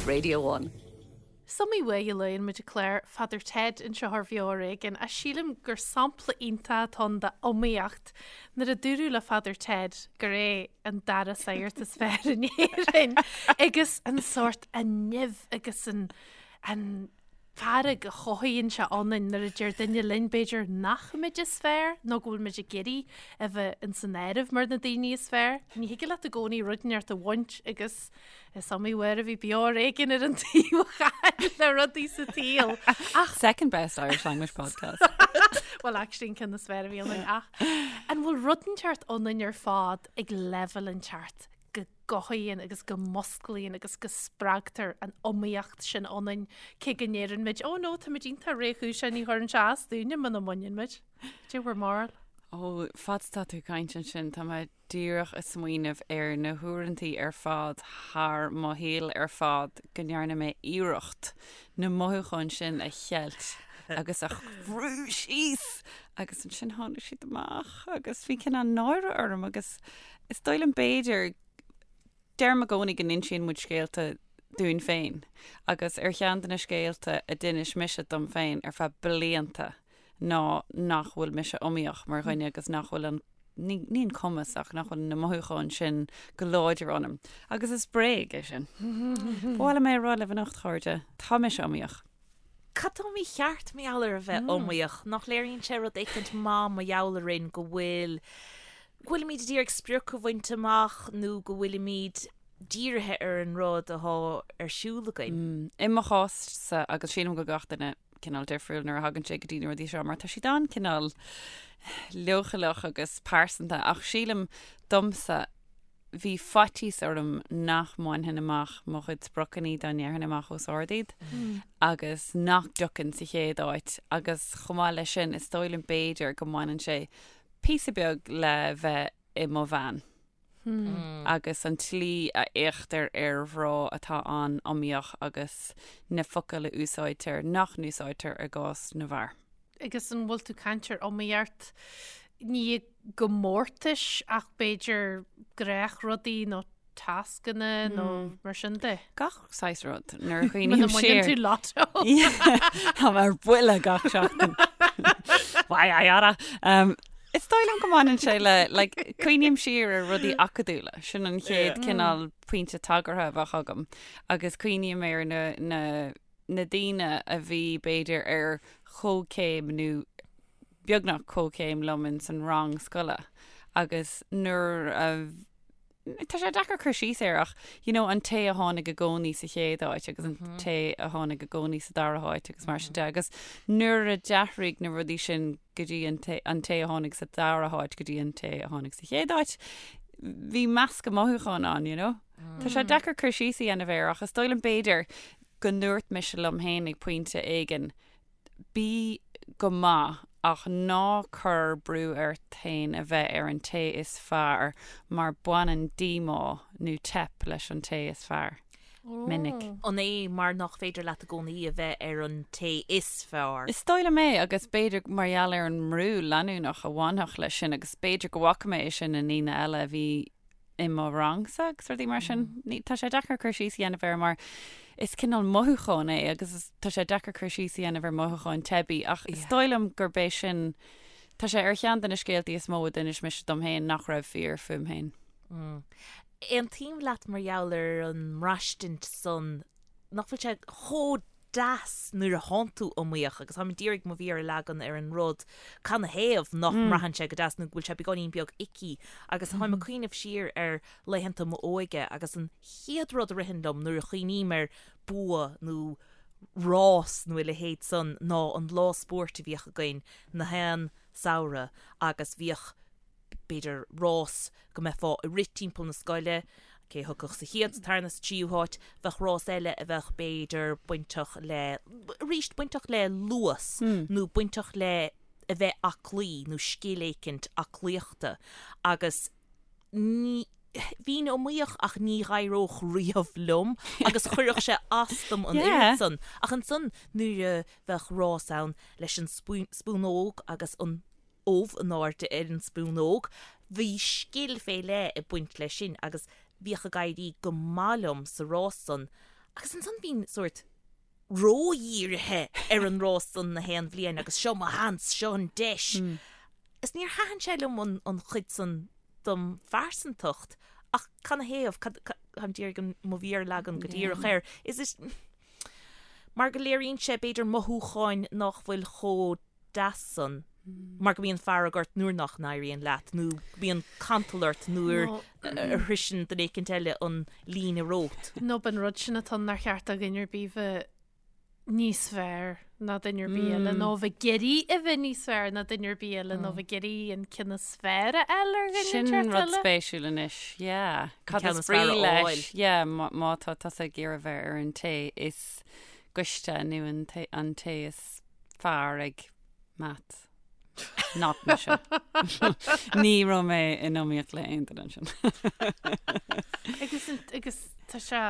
Radio 1. Is iomaí uair a luann muid an clár Father Ted anseo ar Bheo Ar Éigean ach sílim gur sampla iontach atá ann d'iomaíocht nuair a dúradh le Father Ted gur é an dara sagart is fearr in Éirinn agus an sórt an nimh agus an an fearg a chothaíonn sé ionainn nuair a deir duine linn, b'fhéidir, nach muid is fearr nó go bhfuil muid ag iarraidh a bheith ins an áireamh mar na daoine is fearr. Ní thig leat i gcónaí rud inteacht a bhaint agus is iomaí uair a bhí Beo Ar Éigean ar an taobh a chaill le rudaí sa tsaol. Ach Second best Irish language podcast. Well, actually an ceann is fearr a bhí ionainn ach an bhfuil rud inteacht ionainn ar fad ag leibhéal inteacht go gcothaíonn agus go musclaíonn agus go spreagtar an iomaíocht sin ionainn, cé go ndeireann muid, oh no, táimid iontach réchúiseach, ní chuireann sé as dúinne muna mbaineann muid. Cad é bhur mbarúil? Ó, fad is atá tú ag caint ansin, tá mé díreach ag smaoineamh ar na huaireantaí ar fad thar mo shaol ar fad go ndearna mé iarracht na mothúcháin sin a cheilt agus a bhrú síos agus ansin tháinig siad amach agus bhí cineál náire orm agus Is dóigh liom b'fhéidir, deirim i gcónaí go n-insíonn muid scéalta dúinn féin agus ar cheann de na scéalta a d'inis mise dom féin ar feadh blianta ná nach bhfuil mise iomaíoch mar dhuine agus nach bhfuil an, ní, ní an cumas ach nach bhfuil na mothúcháin sin go láidir ionam. Agus is bréag é sin. Ba mhaith liom é a rá libh anocht, a chairde, tá mise iomaíoch. Cad tá mícheart mar gheall ar a bheith iomaíoch? Nach léiríonn sé rud éicint maith mar gheall orainn go bhfuil, go bhfuilimid ag iarraidh sprioc a bhaint amach nó go bhfuilimid dírithe ar an rud atá ar siúl againn? I mo chás-sa, agus sílim go bhfuil gach duine cineál difriúil nuair a thagann sé go dtí na rudaí seo mar tá siad an-cineál leochaileach agus pearsanta ach sílim domsa, bhí faitíos orm nach mbainfinn amach mo chuid spriocanna dá ndéarfainn amach os ard iad agus nach dtiocfainn sa chéad áit agus chomh maith leis sin is dóigh liom b'fhéidir go mbaineann sé píosa beag le bheith i mo bhean agus an tslí a fhéachtar ar mhná atá an-iomaíoch agus na focail a úsáidtear nach n-úsáidtear i gcás na bhfear. Agus an bhfuil tú ag caint ar iomaíocht ní i gcomórtais ach b'fhéidir gnáthrudaí nó tascanna nó mar sin de? Gach saghas rud nuair a chuimhním siar. Muna mbaineann tú lotto. Tá mé ar buile gach seachtain. Why I oughta. Is dóigh liom go mbaineann sé le, like, cuimhním siar ar rudaí acadúla, sin an chéad cineál pointe tagartha a bheadh agam agus cuimhním ar na, na, na daoine a bhí, b'fhéidir, ar chomhchéim nó beagnach comhchéim liom ins an rang scoile agus nuair a tá sé deacair cur síos air ach you know an té a tháinig i gcónaí sa chéad áit agus an té a tháinig i gcónaí sa dara háit agus mar sin de agus nuair a d'athraigh na rudaí sin go dtí an té an té a tháinig sa dara háit go dtí an té a tháinig sa chéad áit bhí meascadh mothúchán ann you know. Tá sé deacair cur síos a dhéanamh air ach is dóigh liom b'fhéidir go ndúirt mise liom féin ag pointe éigin, bí go maith ach ná cuir brú ort féin a bheith ar an té is fearr mar baineann díomá nó teip leis an té is fearr. Minic. An é mar nach féidir leat i gcónaí a bheith ar an té is fearr? Is dóigh liom é agus b'fhéidir mar gheall ar an mbrú leanúnach a bhainfeadh leis sin agus b'fhéidir go bhfaca mé é sin i ndaoine eile a bhí i mo rangsa agus rudaí mar sin. Ní, tá sé deacair cur síos a dhéanamh air mar is cineál mothúchán é agus is, tá sé deacair cur síos a dhéanamh ar mhothúcháin teibí ach is dóigh liom gurb é sin, tá sé ar cheann de na scéaltaí is mó a d'inis mise dom féin nach raibh fíor fúm féin. Aontaím leat mar gheall ar an mbraistint san nach bhfuil sé chomh deas nuair a thánn tú iomaíoch agus táim d'iarraidh mo mhéar a leagan ar an rud canathaobh nach mbraitheann sé go deas nó go bhfuil sé beagáinín beag icky agus táim ag cuimhneamh siar ar laethanta m'óige agus an chéad rud a ritheann liom nuair a chuimhním ar bua nó rás nó a leithéid san ná an lá spóirt a bhíodh againn na haon samhradh agus bhíodh b'fhéidir rás go mbeifeá ag rith timpeall na scoile, cé a thiocfadh sa chéad, sa tarna, sa tríú háit, bheadh rás eile a bheadh b'fhéidir bainteach le, arís, bainteach le luas nó bainteach le a bheith aclaí nó scil éicint aclaíochta agus ní, bhínn iomaíoch ach ní dh'éireodh riamh liom agus chuirfeadh sé as dom an oiread san. Ach ansan nuair a bheadh rás ann leis an spúnóg agus an ubh in airde ar an spúnóg. Bhí scil fé leith ag baint leis sin agus bhíodh ag éirí go maith liom sa rás san. Agus ansan bhínn sórt ródhírithe ar an rás san na haon bhliain agus seo mo sheans, seo an deis. Is níor thaitin sé liom an, an chuid san dom phearsantacht ach canathaobh, cad, táim d'iarraidh an, mo mhéar a leagan go díreach air. Is it, mar go léiríonn sé b'fhéidir mothúcháin nach bhfuil chomh deas san mar go mbíonn fearg ort nuair nach n-éiríonn leat nó go mbíonn cantal ort nuair a shroiseann duine éicint eile an líne romhat. Nó b'in rud sin atá ann nár cheart do dhuine ar bith bheith níos fearr ná duine ar bith eile nó bheith ag iarraidh a bheith níos fearr ná duine ar bith eile nó bheith ag iarraidh an ceann is fearr a fháil ar dhuine Sin inteacht rud eile. spéisiúil anois, yeah. Cad ceann is is fearr brí a leis, fháil. yeah, má má tá tusa ag iarraidh bheith ar an té is gaiste nó an té an té is fearr ag maths. Not mise. Ní raibh mé in iomaíocht le aon duine ansin. Agus agus tá sé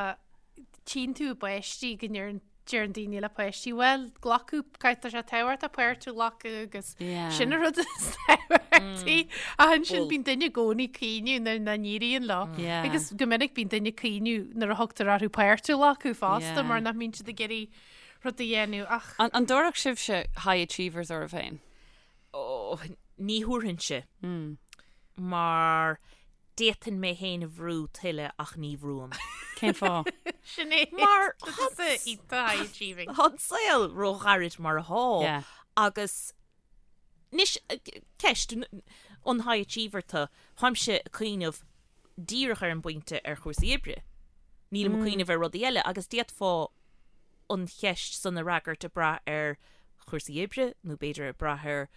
tchíonn tú i bpáistí go ndeireann deireann daoine le páistí, bhuel, glacadh, caithfidh tá sé tábhachtach páirt a ghlacadh agus Yeah. sin an rud is tábhachtaí. Ach ansin Bhuel. bíonn duine i gcónaí ag caoineadh nuair nach n-éiríonn leo. Yeah. Agus go minic bíonn duine ag caoineadh nuair a thugtar orthu páirt a ghlacadh fosta Yeah. mar nach mbíonn siad ag iarraidh rud a dhéanamh ach. An dtabharfadh sibhse high achievers oraibh féin? Ó, ní thabharfainnse. Mar d'fhéadfainn mé féin a bhrú tuilleadh ach ní bhrúim. Cén fáth? Sin é. Mar Tá iontach high achieving. Tá an saol róghairid mar atá Yeah. agus anois, ceist, an high achiever tú, táimse ag cuimhneamh díreach ar an bpointe ar chúrsaí oibre. Nílim ag cuimhneamh ar rudaí eile agus d'fhéadfá an cheist san a fhreagairt ag brath ar chúrsaí oibre nó b'fhéidir ag brath ar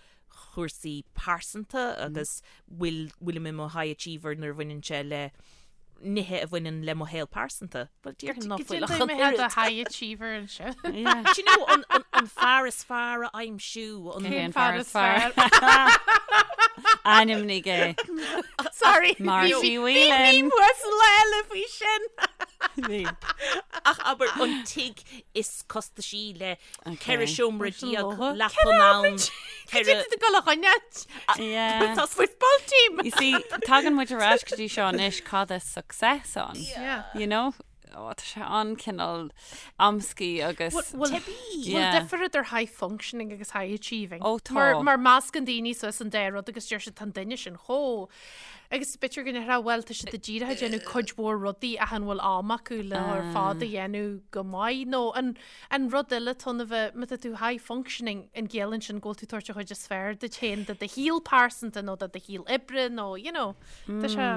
chúrsaí pearsanta agus bhfuil bhfuilim i mo high achiever nuair a bhaineann sé le nithe a bhaineann le mo shaol pearsanta. Bhuel, déarfainn ná fuil ach an Mé had a oiread. high achiever anseo. Yeah. Do you know, an, an, an fear is fearr a aimsiú, an, Cén Cén fear is fearr? Ainmnigh é. Sorry. Marcy Bhí Whelan. uasal eile faoi sin. Bhí. Ach abair an tigh is costaisí le 14 seomra leapan ann. Cad é tú ag dul a choinneáilt? Yeah. Tá football team. You see, tagann muid ar ais go dtí seo anois cad is success ann. Yeah. You know? Ó, tá sé an-cineál amscaí agus... Bhfuil Yeah. difear idir high functioning agus high achieving? Ó, tá. Mar, mar meascann daoine suas an dá rud agus deir siad tá an duine sin chomh. Agus b'fhéidir go ndéarfá bhuel tá siad díreach ag déanamh cuid mhór rudaí ach an bhfuil am acu le ar fad a dhéanamh go maith nó an, an rud eile tá a bheith, má tá tú high functioning an gciallaíonn sin go bhfuil tú ag tabhairt an chuid is fearr duit féin de do shaol pearsanta nó de do shaol oibre nó you know tá sé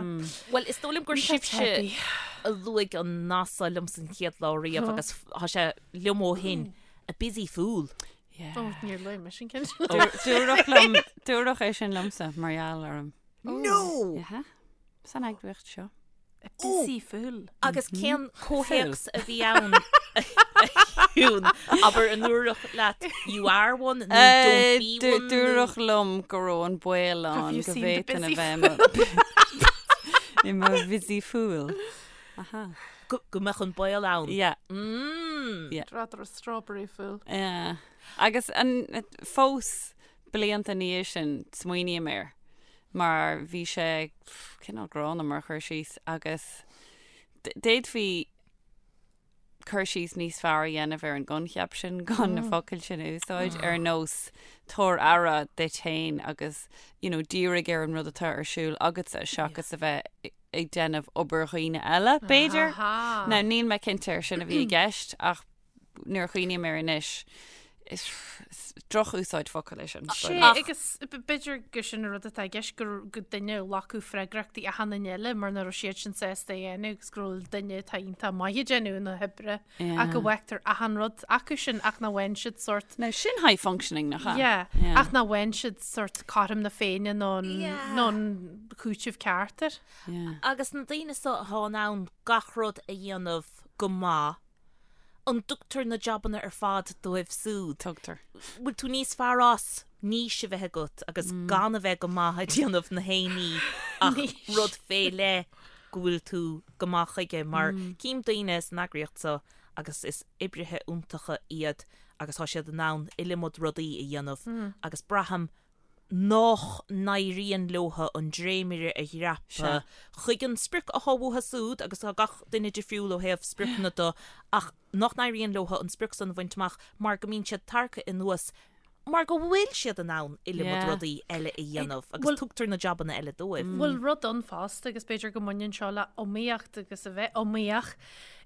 Bhuel, is dóigh liom gur Tá sibhse teibí. a luaigh an nath so liom san chéad lá riamh agus tá sé liom ó shin, a busy fool. Yeah. Ó, níor luaigh mise an ceann sin. Dúradh liom, dúradh é sin liomsa mar gheall orm. No! Yeah. San eagraíocht seo. A busy fool. Agus cén comhthéacs a bhí ann a Shiún? Abair an ndúradh leat you are one nó don't be one? nó- Dúradh liom go raibh an baol Have ann you go seen the bhféadfainn a busy bheith i mo- i mo busy fool. Aha. Go go mbeadh an baol ann. Yeah. Mm. Yeah. Rather a strawberry fool. Yeah. Agus an fós blianta ina dhiaidh sin smaoiním air mar bhí sé cineál gránna mar chur síos agus d'fhéadfaí cur síos níos fearr a dhéanamh ar an gcoincheap sin gan na focail sin a úsáid ar nós tabhair aire duit féin agus you know, dírigh ar an rud atá ar siúl agatsa seachas a bheith ag déanamh obair dhaoine eile, b'fhéidir. Now níl mé cinnte ar sin a bhí i gceist ach nuair a chuimhním air anois, is droch-úsáid focal é sin. Sé, agus b'fhéidir gur sin an rud atá i gceist, gur go duine a ghlacadh freagrachtaí achan duine eile mar nach raibh siad sin sásta a dhéanamh agus go raibh duine atá iontach maith ag déanamh na hoibre ach go bhfágtar achan rud acu sin ach nach bhfaigheann siad sórt Now sin high functioning nach ea? Yeah, Yeah. ach nach bhfaigheann siad sórt cothrom na Féinne nó an Yeah. nó an cúiteamh ceart air. Yeah. Agus na daoine so atá in ann gach rud a dhéanamh go maith, An dtugtar na jabanna ar fad dóibh súd? Tugtar. Bhfuil tú níos fearr as niche a bheith agat agus gan a bheith go maith ag déanamh na haon ní ach rud fé leith go bhfuil tú go maith chuige mar cím daoine san eagraíocht seo agus is oibrithe iontacha iad agus tá siad in ann iliomad rudaí a dhéanamh agus braithim. Nách n-éiríonn leotha an dréimire a dhreapadh chuig an sprioc athá uathu súd, agus tá gach duine difriúil ó thaobh spriocanna de, ach nach n-éiríonn leotha an sprioc san a bhaint amach mar go mbíonn siad tarractha anuas mar go bhfuil siad in ann iliomad rudaí eile a dhéanamh agus tugtar na jabanna eile dóibh. Bhfuil rud ann fosta agus b'fhéidir go mbaineann seo le iomaíocht agus a bheith iomaíoch.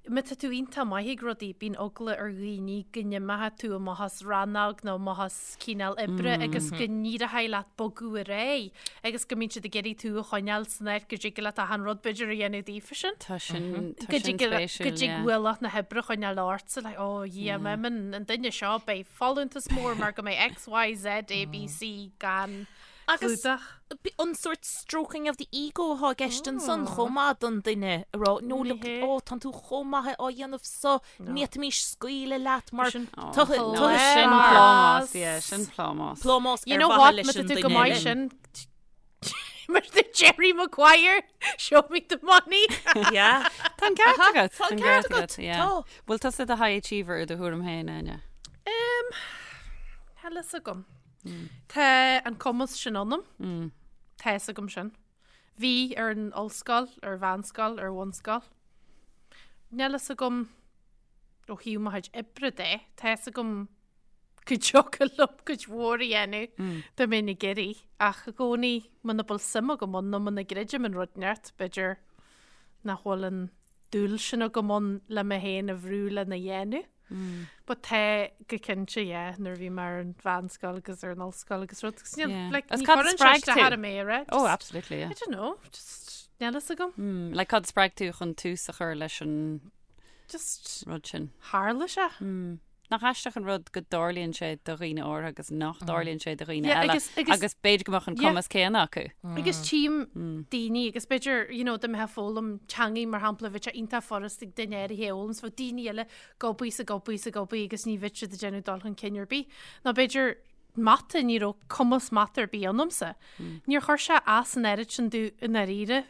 Má tá tú iontach maith ag rudaí, bíonn eagla ar dhaoine go n-imeoidh tú amach as rannóg nó amach as cineál oibre agus go n-éireoidh leat bogadh ar aghaidh agus go mbíonn siad ag iarraidh tú a choinneáil san áit go dtig leat achan rud b'fhéidir a dhéanamh daofa sin. Tá sin, tá sin spéisiúil, Go dtig ualach na hoibre a choinneáil ortsa, like, oh yeah, má imíonn an duine seo, beidh folúntas mór mar go mbeidh X, Y, Z, A, B, C gan Agus clúdach. an sórt stroking of the ego athá i gceist ansan chomh maith don duine a rá no look oh tánn tú chomh maith á dhéanamh so ní fhéadfaimis scaoileadh leat mar Sin Sin plámás, yeah, sin plámás. Plámás You ar know mhaithe what, leis má tá an tú go duine maith eile. sin mar the Jerry Maguire, show me the money. Yeah. Tá an ceart agat. Tá an ceart agat, yeah. tá. Bhfuil tusa i do high achiever i do thuairim féin, Áine? Um, níl a fhios agam. Tá an cumas sin ionam. Tá a fhios agam sin. Bhí ar an ollscoil, ar mheánscoil, ar bhunscoil. Níl a fhios agam ó thaobh mo chuid oibre de, tá a fhios agam go dtiocfadh liom cuid mhór a dhéanamh dá mbeinn ag iarraidh, ach i gcónaí muna bhfuil suim agam ann nó muna gcreidim in rud inteacht, b'fhéidir nach bhfuil an dúil sin agam ann le mé féin a bhrú lena dhéanamh. But tá go cinnte, yeah, nuair a bhí mé ar an mheánscoil agus ar an ollscoil agus rud, agus níl, Yeah. like, Agus ní cad chuireann sé spreag isteach tú? ar mé, right? Oh, Just- absolutely, yeah. I don't know, just níl a fhios agam. Mm, like cad spreag tú chun tús a chur leis an Just rud sin? tharla sé. Mm. Nach aisteach an rud go dtarlaíonn sé do dhaoine áirithe agus nach dtarlaíonn sé do dhaoine Yeah, eile agus- agus- agus b'fhéidir go mbeadh an Yeah. cumas céanna acu. Agus tchím daoine agus b'fhéidir, you know, dá mbeifeá ag foghlaim teangaí mar shampla, bheadh sé iontach furast ag duine áirithe a fhoghlaim, 's bheadh daoine eile ag obair 's ag obair 's ag obair agus ní bheadh siad ag déanamh dul chun cinn ar bith. Nó b'fhéidir mata, ní raibh cumas mata ar bith ionamsa. Níor chuir sé as an oiread sin domh i ndáiríre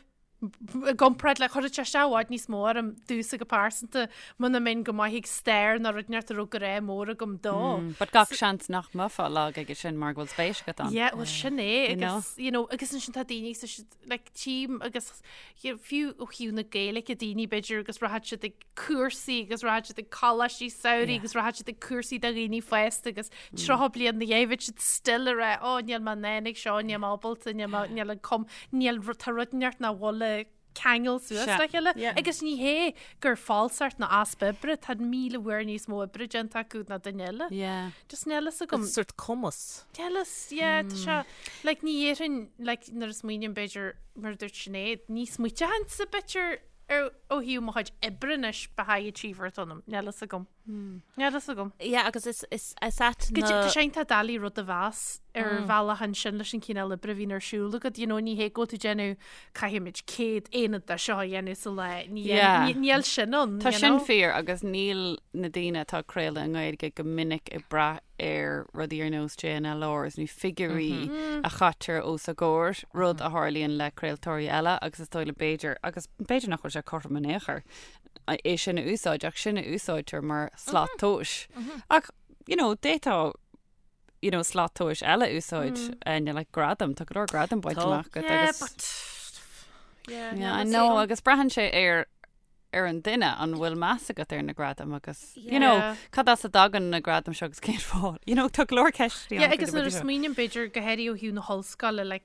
i gcomparáid le, chuirfeadh sé isteach i bhfad níos mó orm domhsa go pearsanta muna mbeinn go maith ag stair nó rud inteacht a raibh grá mór agam dó. But gach seans nach mbeifeá lag aige sin mar go bhfuil spéis agat ann. Yeah, well sin é You know? agus, you know, agus ansin tá daoine sa siad, like, tchím agus you know, fiú ó thaobh na Gaeilge daoine b'fhéidir agus rachaidh siad ag cúrsaí agus rachaidh siad ag coláistí samhraidh agus rachaidh siad ag cúrsaí do dhaoine fásta agus 30 bliain ina dhiaidh bheadh siad still ag rá ó níl mé in ann ag seo, níl mé ábalta, níl mé, níl an cum, níl ru- tá rud inteacht nach bhfuil le ceangal suas Sea. le chéile. Yeah. Agus ní hé gur falsacht ná easpa oibre, tá 1000 uair níos mó oibre déanta acu ná duine eile. Yeah. Just níl a fhios agam. Sort cumas. Níl a fhios, yeah, tá sé, like, ní dhéarfainn, like, nuair a smaoiním b'fhéidir, mar a dúirt Sinéad, ní smaointeochainnse b'fhéidir ar ó thaobh mo chuid oibre anois ba high achiever atá ionam, níl a fhios agam. Níl a fhios agam. Yeah, agus is, is, is ait Go na... Tá sé iontach doiligh rud a mheas ar bhealach ansin leis an chineál oibre a bhíonn ar siúl agat, you know, ní hé go bhfuil tú ag déanamh caithfimid 100 aonad de seo a dhéanamh sa lá, ní Yeah. ní- níl sin ann, Tá you sin know. fíor agus níl na daoine atá ag craoladh i nGaeilge go minic ag brath ar rudaí ar nós JNLRs nó figiúirí a chaitear os a gcomhair, rud a tharlaíonn le craoltóirí eile agus is dóigh liom b'fhéidir, agus b'fhéidir nach bhfuil sé cothrom in aon chor, é sin a úsáid ach sin a úsáidtear mar slat tomhais. Ach, you know, d'fhéadfá you know, slat tomhais eile a úsáid mm. like gradam, tá go leor gradam bainte amach agat Yeah, agus but yeah, Yeah, I know, agus braitheann sé ar ar an duine an bhfuil meas agat ar na gradaim agus you know, Yeah. cad as a dtagann na gradaim seo agus cén fáth. You know, tá go leor ceisteanna Yeah, agus nuair a smaoiním b'fhéidir go háirithe ó thaobh na hollscoile, like,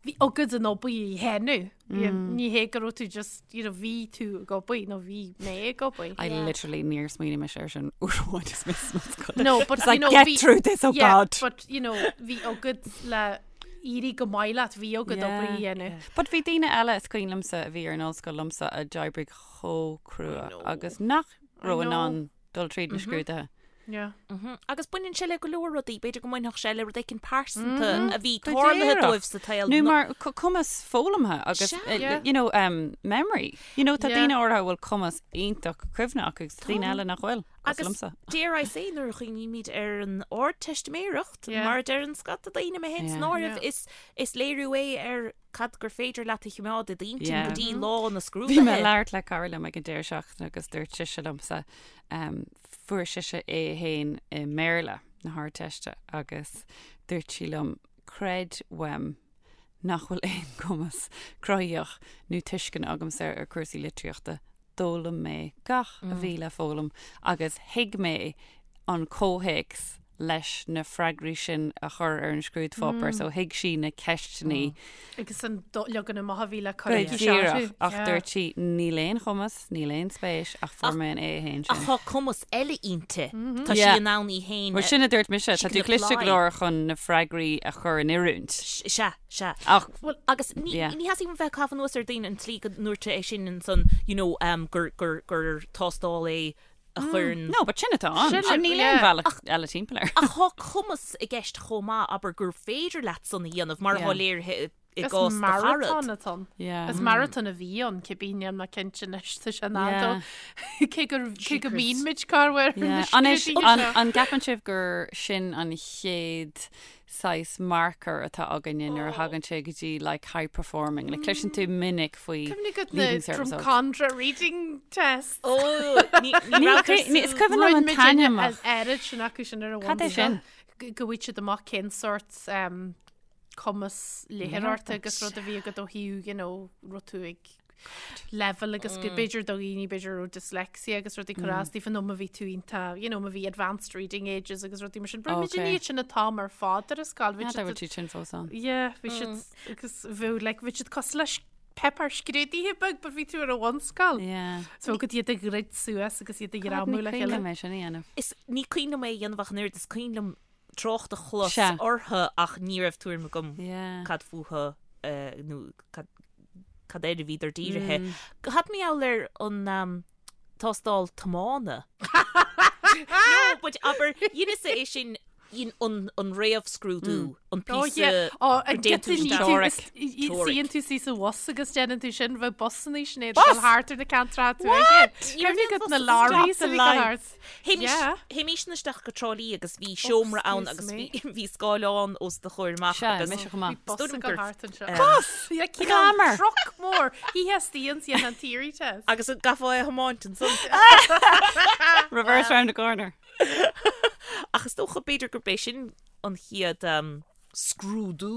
bhí agat an obair a dhéanamh. Ní hé go raibh tú just, you know, bhí tú ag obair nó bhí mé ag obair. I literally níor smaoinigh mise ar sin uair amháin is mé san ollscoil. No, but It's like, you know, get bhí- through this, oh yeah, God. But, you know, bhí agat le éirí go maith leat, bhí agat obair a dhéanamh. But bhí daoine eile is cuimhin liomsa a bhí ar an ollscoil liomsa a d'oibrigh chomh crua agus nach raibh in ann dul tríd na scrúduithe. Yeah. Agus baineann sé le go leor rudaí, b'fhéidir go mbainfeadh sé le rud éicint pearsanta a bhí Go tarlaithe díreach. dóibh sa tsaol. Nó mar cumas foghlamtha agus, Sea. Yeah. you know, um, memory. You know, tá Yeah. daoine áirithe a bhfuil cumas iontach cuimhne acu agus daoine eile nach bhfuil. Cosúil Agus liomsa. dare I say, nuair a chuimhnímid ar an Ardteistiméireacht, Yeah. mar a deireann scata daoine, mé féin san Yeah. áireamh, Yeah. is, is léiriú é ar cad gur féidir leat a choimeád i d'intinn Yeah. go dtí lá na Bhí mé scrúduithe. ag labhairt le cara liom ag an deireadh seachtaine agus dúirt sise liomsa, um, fuair sise A1 i mBéarla na hArdteiste agus dúirt sí liom. Creid uaim nach bhfuil aon chumas cruthaitheach nó tuisceana agamsa ar chúrsaí litríochta. D'fhoghlaim mé gach a bhí le foghlaim agus thuig mé an comhthéacs leis na freagraí sin a chur ar an scrúdpháipéar so thuig sí na ceisteanna. Agus an leagan amach a bhí le cur aici díreach, ach dúirt sí níl aon chumas, níl aon spéis ach fuair mé an A1 sin. Ach tá cumas eile inti. Tá sí in ann í féin Bhuel sin a dúirt mise, tá tú cliste go leor chun na freagraí a chur in oiriúint. Sea, sea. Ach, Bhuel, agus ní theastaíonn uaim bheith ag caitheamh anuas ar daoine an tslí go ndúirt sé é sin ansan, you know, gur, gur, gur tástáil é a chuireann. No, but sin atá ann. Sin, Sin níl aon bhealach eile timpeall air. Ach tá cumas i gceist chomh maith, abair, gur féidir leat san a dhéanamh, mar atá léirithe i Is gcás do charad. maratón atá ann. Yeah. Is maratón a bhí ann, cibé níl mé cinnte anois, tá sé in am dó. Cé gur cé go mbíonn muid corruair ar na Anois, scrúduithe an, seo. an gceapann sibh gur sin an chéad saghas marker atá againne nuair a thagann sé go dtí like high performing. Like cloiseann tú minic faoi Cuimhnigh agat na Leaving Cert results. Drumcondra reading test. Ó, ní ní raibh Ní, ní, is cuimhin liom an t-ainm ach. An oiread sin acu sin ar an Cad é sin? Go bhfaighidh siad amach cén sórt um, cumas léitheoireachta agus rud a bhí agat ó thaobh, you know, raibh tú ag level agus go b'fhéidir do dhaoine b'fhéidir raibh dyslexia agus rudaí ag cur as daofa nó má bhí tú iontach, you know, má bhí advanced reading ages agus rudaí mar sin. Bhí muid in iad sin an t-am ar fad ar an scoil. Bhí siad bhfuil siad sin fós ann. Yeah, bhí siad agus bhí like bhí siad cosúil le páipéar scrúdaithe beag but bhí tú ar an bhunscoil. Yeah. So go iad a dhruid suas agus iad a ghreamú le chéile. Ní cuimhin liom é sin a dhéanamh. Is ní cuimhin liom é a dhéanamh ach an oiread is cuimhin liom trácht a chlos orthu ach ní raibh tuairim agam cad fúthu nó cad cad air a bhíodar dírithe. Cad mar gheall ar an tástáil tiomána? No, but abair, dheineas-sa é sin in an an réamhscrúdú, an píosa Ó, an déanann tú isteach. Suíonn tú síos sa bhus agus déanann tú sin, bheadh busanna sin iad dul thart ar na ceantracha tuaithe. Cuimhnigh agat na lorries a bhí ag dul thart. Théimis isteach go Trá Lí agus bhí seomra ann agus bhí scáileán os do chomhair amach agus mise chomh maith. Bhí bus ag dul thart anseo. Bus! Glamour! Truck mór! Theastaíonn sí an theory test. Agus an gcaithfeá é a thiomáint ansan. Reverse round the corner. Ach is dócha b'fhéidir gurb é sin an chéad scrúdú.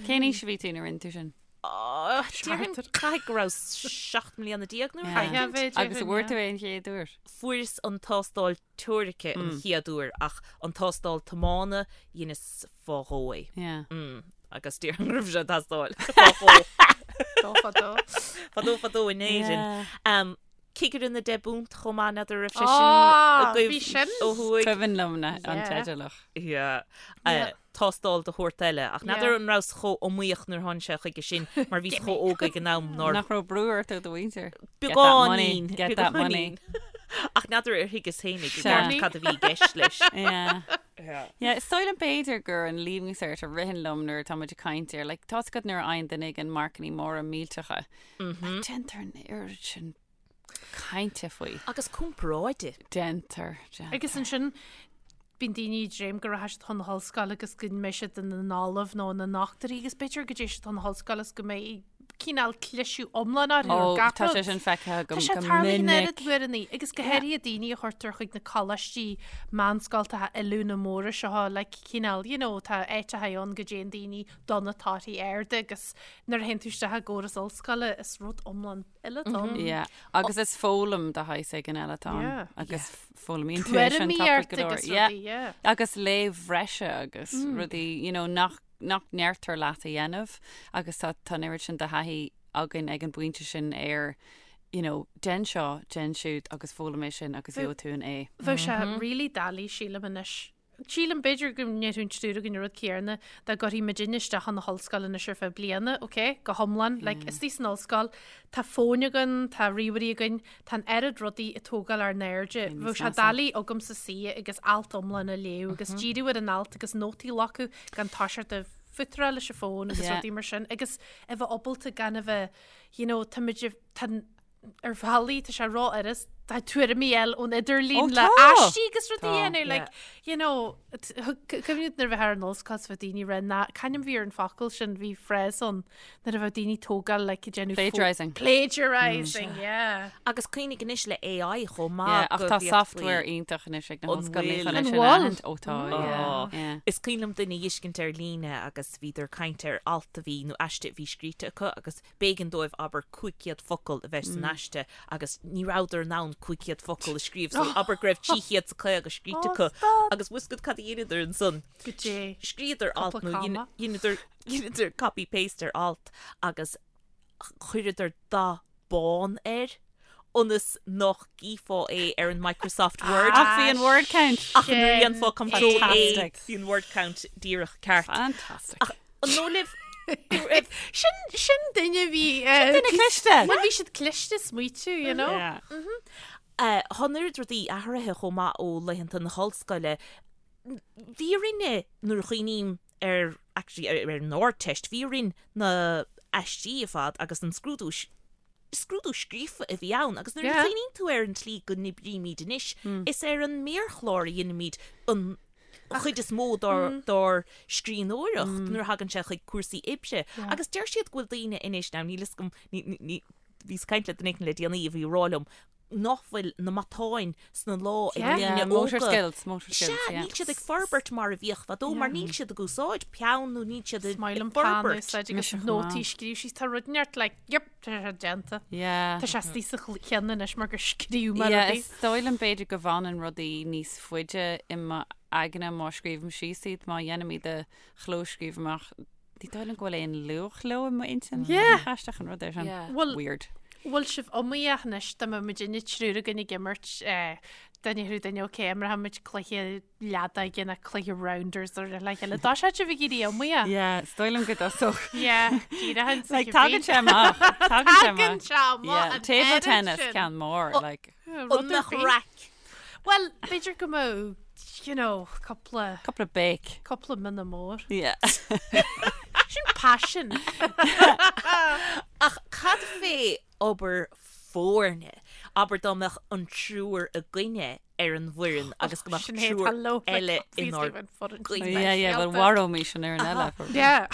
Cén aois a bhí tú nuair a rinne tú sin? Déarfainn caithfidh go raibh 17 mbliana nó rud éicint. Agus an bhfuair tú é an chéad uair? Fuaireas an tástáil teoirice an chéad uair ach an tástáil tiomána dheineas fá dhó é. Agus déarfainn go raibh sé ag teastáil fá dhó. Fadó fadó. Fadó fadó in Éirinn. Cigire na deich bpunt chomh maith, n'fheadar raibh sé sin agaibh Bhí sin. ó thuaidh. Cuimhin liom an teideal ach. Yeah. Tástáil de shórt eile. Ach n'fheadar an rabhas chomh iomaíoch nuair a tháinig sé chuige sin mar bhíos chomh óg ag an am nár. Nach raibh brú ort ó do mhuintir? Beagáinín. Get that money. Ach n'fheadar ar thuigeas féinig i gceart cad a bhí i gceist leis. Yeah. Yeah, is dóigh liom b'fhéidir gur an Leaving Cert a ritheann liom nuair atá muid ag caint air. Like, tá's agat nuair a fhaigheann duine éigin marcannaí móra millteacha. Like, déantar an oiread sin cainte faoi. Agus comparáide. Déantar, déantar. Agus ansin bíonn daoine ag dréim go rachaidh siad chun na hollscoile agus go mbeidh siad ina n-ollamh nó ina ndochtúirí agus b'fhéidir go dtéann siad chun na hollscoile agus go mbeidh cineál cliseadh iomlán orthu ar Ó, gach tá rud. sé sin feicthe agam Tá sé go tarlaithe an minic. oiread uaireanna agus go háirithe daoine a chuirtear chuig na coláistí meánscoltacha oiliúna móra seo like cineál, you know, tá áiteacha ann go dtéann daoine do na torthaí arda agus nuair a théann tú isteach i gcóras ollscoile is rud iomlán eile atá ann. Yeah. Agus is foghlaim de shaghas éigin eile atá ann. Yeah. Agus foghlaimíonn tú é sin Tuairimí tapaidh ort go leor. agus Yeah. rudaí, yeah. Agus léamh bhreise agus rudaí, you know, nach, nach ndeirtear leat a dhéanamh agus tá, tá an oiread sin de thaithí againn ag an bpointe sin ar, you know, déan seo, déan siúd agus foghlaim é sin agus gheobhaidh tú an A. Bheadh sé really doiligh, sílim anois, Sílim, b'fhéidir go ndéarfadh an triúr againn an rud céanna, dá gcuirfí muidinne isteach chun na hollscoile anois ar feadh bliana, ok, go hiomlán, like, istigh san ollscoil, tá fóin againn, tá ríomhairí againn, tá an oiread rudaí ag tógáil ár n-airde, bheadh sé doiligh agamsa suí agus alt iomlán a léamh agus díriú ar an alt agus nótaí a ghlacadh gan toiseacht ag fútaráil leis an bhfón agus rudaí mar sin agus a bheith ábalta gan a bheith, you know, tá muid, tá, ar bhealaí, tá sé ró-fhurast. Tá tuairimí eile ón idirlíon Ó, le tá. aistí agus rudaí Tá. a dhéanamh, like, you know, cuimhním nuair a bheith ar an ollscoil is bheadh daoine rá ná, c'ainm bhí ar an focal sin, bhí phrase ann nuair a bheadh daoine tógáil like ag déanamh Plagiarising. Plagiarising, yeah. Agus cuimhnigh anois le AI chomh maith Yeah, ach go tá bhféadfaí- software iontach anois ag na An hollscoileanna bhfuil? chun é An sin a bhfuil? aithint. Ó tá, yeah, yeah. Is cuimhin liom duine a fheiscint ar líne agus bhíodar ag caint ar alt a bhí nó aiste a bhí scríte acu agus B'éigean dóibh, abair, 500 focal a bheith san aiste agus ní rabhadar in ann 500 focal a scríobh so abair go raibh 350 scríte acu agus bhfuil 'fhios agat cad a dheineadar ansan? Goidé. Scríodar alt Cúpla nó comma. dheineadar dheineadar copy paste ar alt agus chuireadar dath bán air ionas nach gcífeá é ar an Microsoft Word. Ach bhí an word count. Ach nuair a dhéanfá control A Fantastic. bhí an word count díreach ceart. Fantastic. Ach an dóigh libh go raibh Sin, sin duine bhí... Sin duine cliste. Bhuel, bhí siad cliste smaoitiú, you know. Yeah. Tá an oiread rudaí athraithe chomh maith ó laethanta na hollscoile. Bhí orainne, nuair a chuimhním ar, actually, ar an Ardteist, bhí orainn na haistí ar fad agus an scrúdú, scrúdú scríofa a bhí ann agus nuair a Yeah. chuimhníonn tú ar an tslí go n-oibrímid anois, is ar an méarchlár a dheinimid an chuid is mó dár scríbhneoireacht nuair a thagann sé chuig cúrsaí oibre. Agus deir siad go bhfuil daoine anois, now níl fhios agam, bhíos ag caint le duine éigin le déanaí a bhí ag rá liom nach bhfuil na matáin sna lámha ag Yeah. daoine Motor óga. skills, motor skills, Sea, yeah. níl siad ag forbairt mar a bhíodh fadó, mar níl siad ag úsáid peann nó níl siad ag Is maith liom peann a forbairt. úsáid agus Mise chomh nótaí maith. scríobh síos. Tá rud inteacht like, yep, tá sé déanta. Yeah. Tá sé istigh sa cheann anois mar gur scríobh mé Yeah, rudaí. is dóigh liom b'fhéidir go bhfanann rudaí níos faide i m'aigne má scríobhaim síos iad, má dhéanaim iad a chlóscríobh amach. Ní dóigh liom go bhfuil aon luach leo i m'intinn. Yeah. Aisteach an rud é sin. Yeah. Bhfuil, Weird. bhfuil sibh iomaíoch anois dá mbeadh muidinne triúr againn ag imirt eh, duine thú duine ok, imreoidh muid cluiche leadóige nó cluiche rounders ar le chéile. Tá sé sibh ag éirí iomaíoch. Yeah, is dóigh liom go dtosódh. Yeah, díreach an Like, tagann sé amach. Tagann sé Tagann amach. sé amach. Yeah, an table oiread tennis sin. ceann mór, like. Rud An ar mbeadh bith. raic? Well, b'fhéidir go mbeadh, you know, cúpla, Cúpla béic. cúpla mionna mór. Yeah. Sin passion. Ach cad fé obair foirne? Abair dá mbeadh an triúr againne ar an bhfoireann agus go mbeadh Sinéad, triúr hello, like, eile obviously inár bheinn foireann. gcoinne. Yeah, yeah, well, mharóimis an fhoireann eile. probably. Yeah.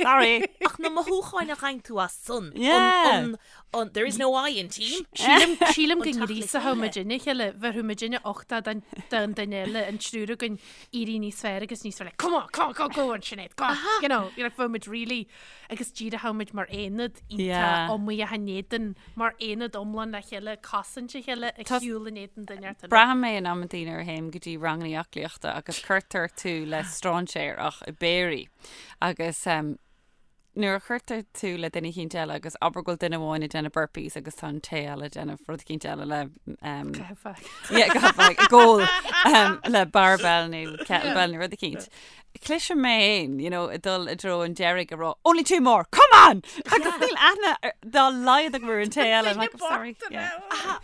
Sorry. Ach na mothúcháin a fhaigheann tú as san. Yeah. An, an, there is no I in team. Sílim sílim go An teacht le ngríosódh chéile. muidinne a chéile, bheadh muidinne uchtach don don duine eile, an triúr againn éirí níos fearr agus níos fearr, like, come on, come on, go, go on, Sinéad, go on, you know, you're like, bheadh muid really, agus díreach muid mar aonad iontach Yeah. iomaíoch in éadan, mar aonad iomlán le chéile, cosaint a chéile, ag Tá- siúl in éadan duine ar duine. Braithim é in amantaí nuair a théim go dtí ranganna aclaíochta agus cuirtear tú le strainséir ach i bpéirí. Agus um, nuair a chuirtear tú le duine eicínt eile agus abair go bhfuil duine amháin ag déanamh burpees agus tá an té eile ag déanamh rud eicínt eile le um, Caitheamh. yeah, go like, goal um, le barbell nó kettlebell nó rud eicínt. Cloisim mé féin, you know, ag dul i dtreo an deiridh ag rá, only two more, come on! Agus níl aithne ar- dá laghad agam ar an té eile. I'm like, "I'm sorry. Yeah.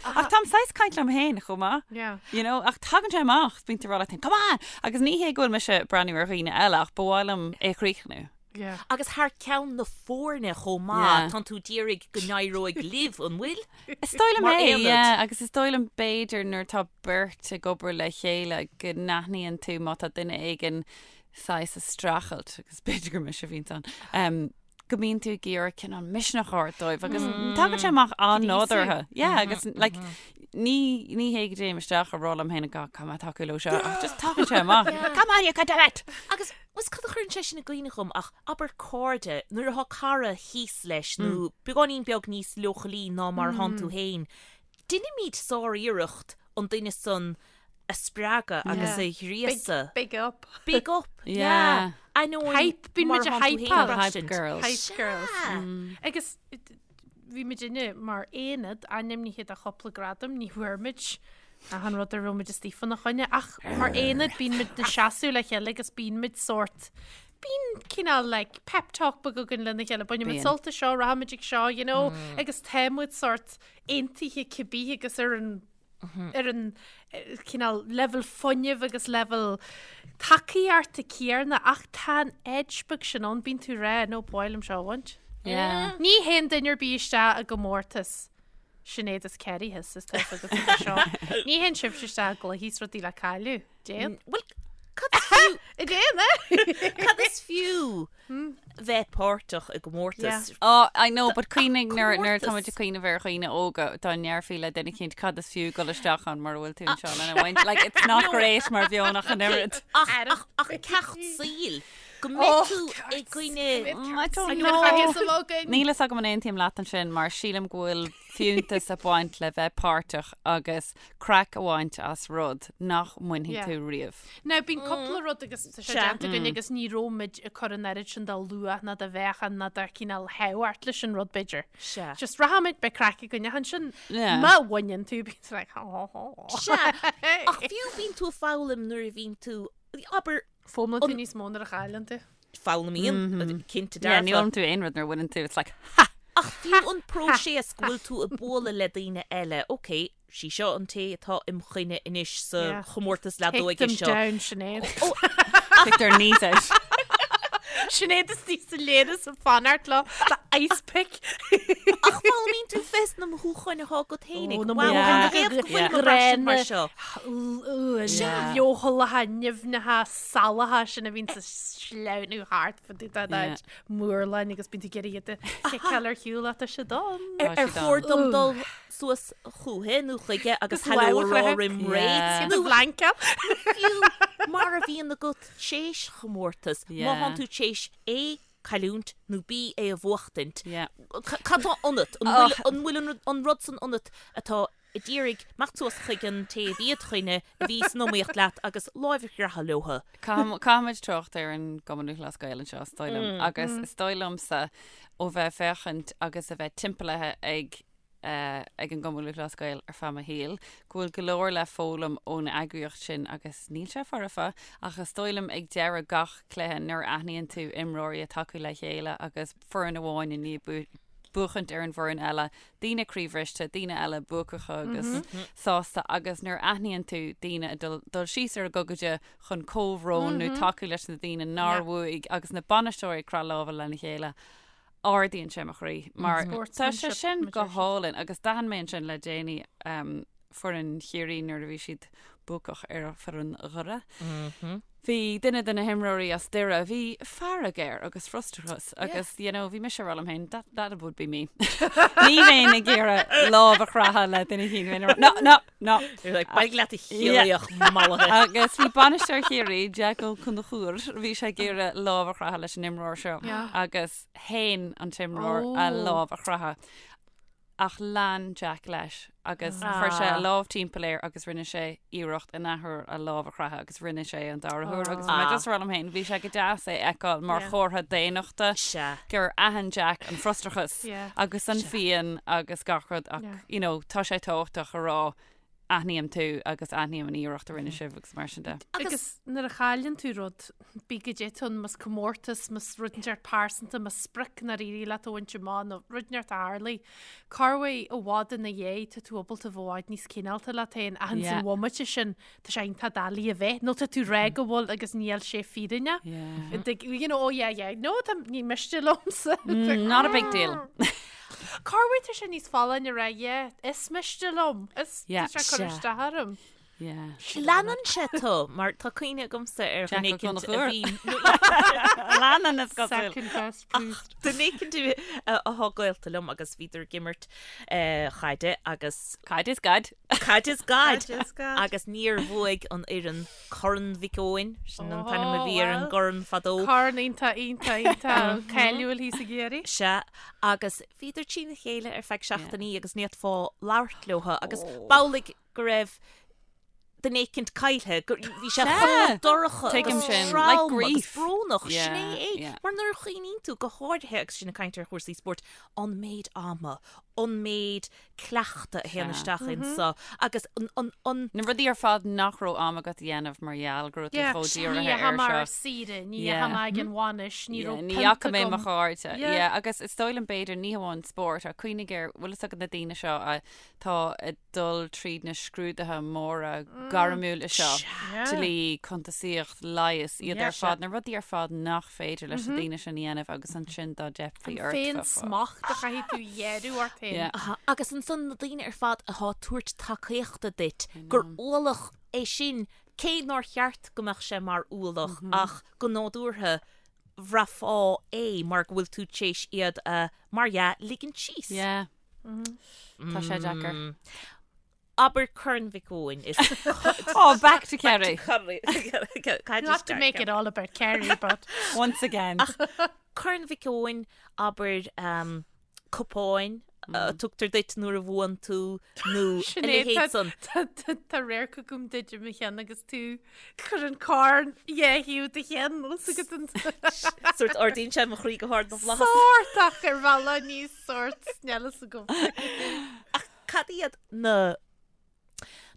Ach táim saghas caint liom féin chomh maith. Yeah. You know, ach tagann sé amach, bíonn tú ag rá leat féin, come on! Agus ní hé go bhfuil mise ag breathnú ar dhaoine eile ach ba mhaith liom é a chríochnú. Yeah. Agus thar ceann na foirne chomh maith, Yeah. tánn tú d'iarraidh go n-éireoidh libh, an bhfuil? Is dóigh liom Mar é, aonad. yeah, agus is dóigh liom b'fhéidir nuair atá beirt ag obair le chéile go n-aithníonn tú má tá duine éigin saghas ag streachailt, agus b'fhéidir gur mise a bhíonns ann, um, go mbíonn tú ag iarraidh cineál misneach a thabhairt dóibh agus tagann sé amach an-nádúrtha. Yeah, agus like, ní, ní hé go dtéim isteach ag rá liom féin go come on tacú leo seo, ach just tagann sé amach. Come on, you can do it! Agus was cad a chuireann sé sin i gcuimhne dhom ach abair cairde, nuair atá cara thíos leis nó beagáinín beag níos leochailí ná mar atánn tú féin, deinimid sár-iarracht an duine san a spreagadh agus a ghríosadh. Big up. Big up, Yeah. yeah. Ainneoin Hype, bíonn mar muid a atánn tú féin hypeáil. ag Hype braistint. girls. Hype girls. Sea. Agus bhí muidinne mar aonad ainmnithe do chúpla gradam, ní bhfuair muid achan rud a raibh muid istigh fána choinne, ach mar aonad bíonn muid ag seasamh le chéile agus bíonn muid sórt, bíonn cineál like pep talk beag againn lena chéile, bainfidh muid Bíonn. sult as seo, rachaidh muid ag seo, you know, agus tá muid sórt aontaithe cibé agus ar an ar an cineál leibhéal fuinnimh agus leibhéal tacaíochta céanna ach tá an edge beag sin ann, bíonn tú ag rá, no, ba mhaith liom seo a bhaint. Yeah. Ní théann duine ar bith isteach i gcomórtas. Sinéad is Kerry thíos is tá fhios agat faoi seo. Ní théann sibhse isteach i gcluichí is rudaí le cailleadh. Déan. Bhuel, cad is fiú? Déan, eh? Cad is fiú bheith páirteach i gcomórtas? Oh, I know, but cuimhnigh nuair nuair tá muid ag cuimhneamh ar dhaoine óga dá ndéarfaí le duine eicínt cad is fiú dul isteach ann mura bhfuil tú anseo lena bhaint. Like, it's not great mar mheon ach an oiread. Ach, ach, ach ceacht saoil. Go mbeidh tú i gcoinne... I don't know. Níl fhios agam an aontaím leat ansin mar sílim go bhfuil fiúntas ag baint le bheith páirteach agus craic a bhaint as rud nach mbainfidh tú riamh. Now bíonn cúpla rud agus tá sé déanta againn agus ní raibh muid ag cur an oiread sin de luach ná de mheáchan ná de chineál thábhacht leis an rud b'fhéidir. Sea. Just rachaimid beidh craic againn ach ansin má bhaineann tú bíonn tú like ha ha ha. Sea. Ach fiú bíonn tú ag foghlaim nuair a bhíonn tú, abair, Foghlaimíonn tú níos mó nuair a chailleann tú. Foghlaimíonn, cinnte dearfa. Yeah, ní fhoghlaimíonn tú aon rud nuair a bhaineann tú, it's like, ha! Ach fiú an próiseas go bhfuil tú ag bualadh le daoine eile, ok, sí seo an té atá im choinne anois sa chomórtas leadóige seo. Take them down, Sinéad. Kick their knees out. Sinéad istigh sa léana sa fanacht leo le ice pick. Ach foghlaimíonn tú fés na mothúcháin atá agat féinig. Ó, na Wow, mothúcháin cad a ghéabh go bhfuil mo bhraistint mar seo? Leochaileacha, nimhneacha, salacha sin a bhíonn ag sleamhnú thart fá dtaobh de d'áit murláin agus bíonn tú ag iarraidh iad a chiceáil ar shiúl ach tá siad ann. Ar ar chóir dom dul suas chuici nó chuige agus hello a rá roim ré? Nó bhlainceáil. Fiú mar a bhíonn agat théis chomórtas, má thánn tú théis A cailliúint nó B é a bhuachtaint. Cad tá ionat? An bhfuil an rud san ionat atá ag iarraidh imeacht suas chuig an té a bhí id choinne, a bhí san iomaíocht leat agus láimh a chroitheadh leo? Caithfimid trácht ar an gCumann Lúthchleas Gael anseo, is dóigh liom. Agus is dóigh liomsa ó bheith ag féachaint agus a bheith timpeallaithe ag ag an gCumann Lúthchleas Gael ar feadh mo shaoil, go bhfuil go leor le foghlaim ón eagraíocht sin agus níl sé foirfe ach is dóigh liom ag deireadh gach cluiche nuair a aithníonn tú imreoirí ag tacú le chéile agus foireann amháin i ndiaidh buachaint ar an bhfoireann eile, daoine croíbhriste, daoine eile buacacha agus sásta agus nuair a aithníonn tú daoine ag dul dul síos ar a gogaide chun comhbhrón nó tacú leis na daoine nár bhuaigh agus na bainisteoirí ag croitheadh lámha lena chéile. ardaíonn sé mo chroí mar tá sé sin go hálainn agus d'aithin mé ansin le déanaí foireann Chiarraí nuair a bhí siad buacach ar foireann Dhoire. Bhí duine de na himreoirí as Doire, bhí fearg air agus frustrachas agus you know bhí mise ag rá liom féin that, that would be me. Ní bheinn ag iarraidh lámh a chroitheadh le duine éicint no, no, no. You're like, Bailigh leat a Chiarraíoch mallaithe. Agus bhí bainisteoir Chiarraí, Jack Ó Conchúir, bhí sé ag iarraidh lámh a chroitheadh leis an imreoir seo Yeah. agus shéan an t-imreoir a Oh. lámh a chroitheadh. Ach lean Jack leis agus chuir sé a Ah. lámh timpeall air agus rinne sé iarracht an athuair a lámh a chroitheadh agus rinne sé an dara huair agus bhí mé Ah. just ag rá liom féin, bhí sé go deas é a fheiceáil mar Yeah. chomhartha daonnachta Sea. gur aithin Jack an frustrachas Yeah. agus an phian agus gach rud ach Yeah. you know, tá sé tábhachtach a rá aithním tú agus aithním an iarracht a rinne sibh agus mar sin de. Agus nuair a chailleann tú rud, bí goidé atá ann, más comórtas, más rud inteacht pearsanta, más sprioc nár éirigh leat a bhaint amach nó rud inteacht a tharlaigh, corruair i bhfad ina dhiaidh tá tú ábalta bheith i bhfad níos cineálta leat féin ach ins Yeah. an bhomaite sin tá sé iontach doiligh a bheith nó tá tú ag rá go bhfuil agus níl sé fírinneach. Yeah. Like, you know, oh yeah, yeah, no, tá ní miste liomsa. Mm, not a big deal. Corruair tá sé níos folláine a rá, yeah, is miste liom, is Yeah. tá sé ag cur Sea. isteach orm. Yeah. Leanann sé tú, mar tá cuimhne agamsa ar Jack dhuine Ó éicint a Conchúir. bhí Leanann is cosúil. Second best priest. Duine éicint atá gaolta liom agus bhíodar ag imirt chaide agus Caid is gad. caid is gad Caid is gad. agus níor bhuaigh an fhoireann Corn Mhic Eoin, sin an t-ainm a Oh, bhí ar an well. gcorn fadó. Corn iontach, iontach, iontach cáiliúil thíos i gCiarraí. Sea, agus bhíodar trína chéile ar feadh seachtainí agus ní fhéadfá labhairt leo agus b'amhlaidh go raibh duine éicint caillthe, go bhí sé chomh dorcha Tuigim agus sin, trom like agus grief. brónach, sin Yeah, é é. yeah. Mar nuair a chuimhníonn tú, go háirithe agus sinn ag caint ar chúrsaí spóirt, an méid ama, an méid cleachta a théann isteach insa agus an, an, an. Na rudaí ar fad nach raibh am agat a dhéanamh mar gheall go raibh tú chomh dírithe Ní air dheachaigh mé ar seo. saoire, ní Yeah. dheachaigh mé ag an bhainis, ní Yeah, raibh ní pionta fhaca mé mo agam. chairde. Yeah. Yeah, agus is dóigh liom b'fhéidir ní hamháin spórt ach cuimhnigh ar, bhfuil fhios agat na daoine seo atá ag dul tríd na scrúduithe móra gairmiúla seo, Yeah. dlí, cuntasaíocht, leigheas, iad Yeah. ar fad, na rudaí ar fad nach féidir leis na daoine sin a dhéanamh agus ansin dá dteipfí ort. Féin smacht a chaithfidh tú a ghearradh ort. féin. Yeah. Aha, agus ansan na daoine ar fad athá ag tabhairt tacaíochta duit, gur ualach é sin, cé nár cheart go mbeadh sé mar ualach ach go nádúrtha bhraithfeá é mar go bhfuil tú tar éis iad a, mar dhea, ligint síos. Yeah. Tá sé deacair. Abair Corn Mhic Eoin is Oh, back to Kerry. Not to make it all about Kerry, but Once again. Corn Mhic Eoin, abair um, cupáin a tugtar duit nuair a bhuann tú nó a Sinéad, leithéid san. tá- tá- tá radharc agam duit i mo cheann agus tú cur an corn dhá thaobh do cheann os agat an Sórt ardaíonn sé mo chroí go hard na bhflaitheas. sórt ach ar bhealach níos sórt níl a fhios agam. Ach cad iad na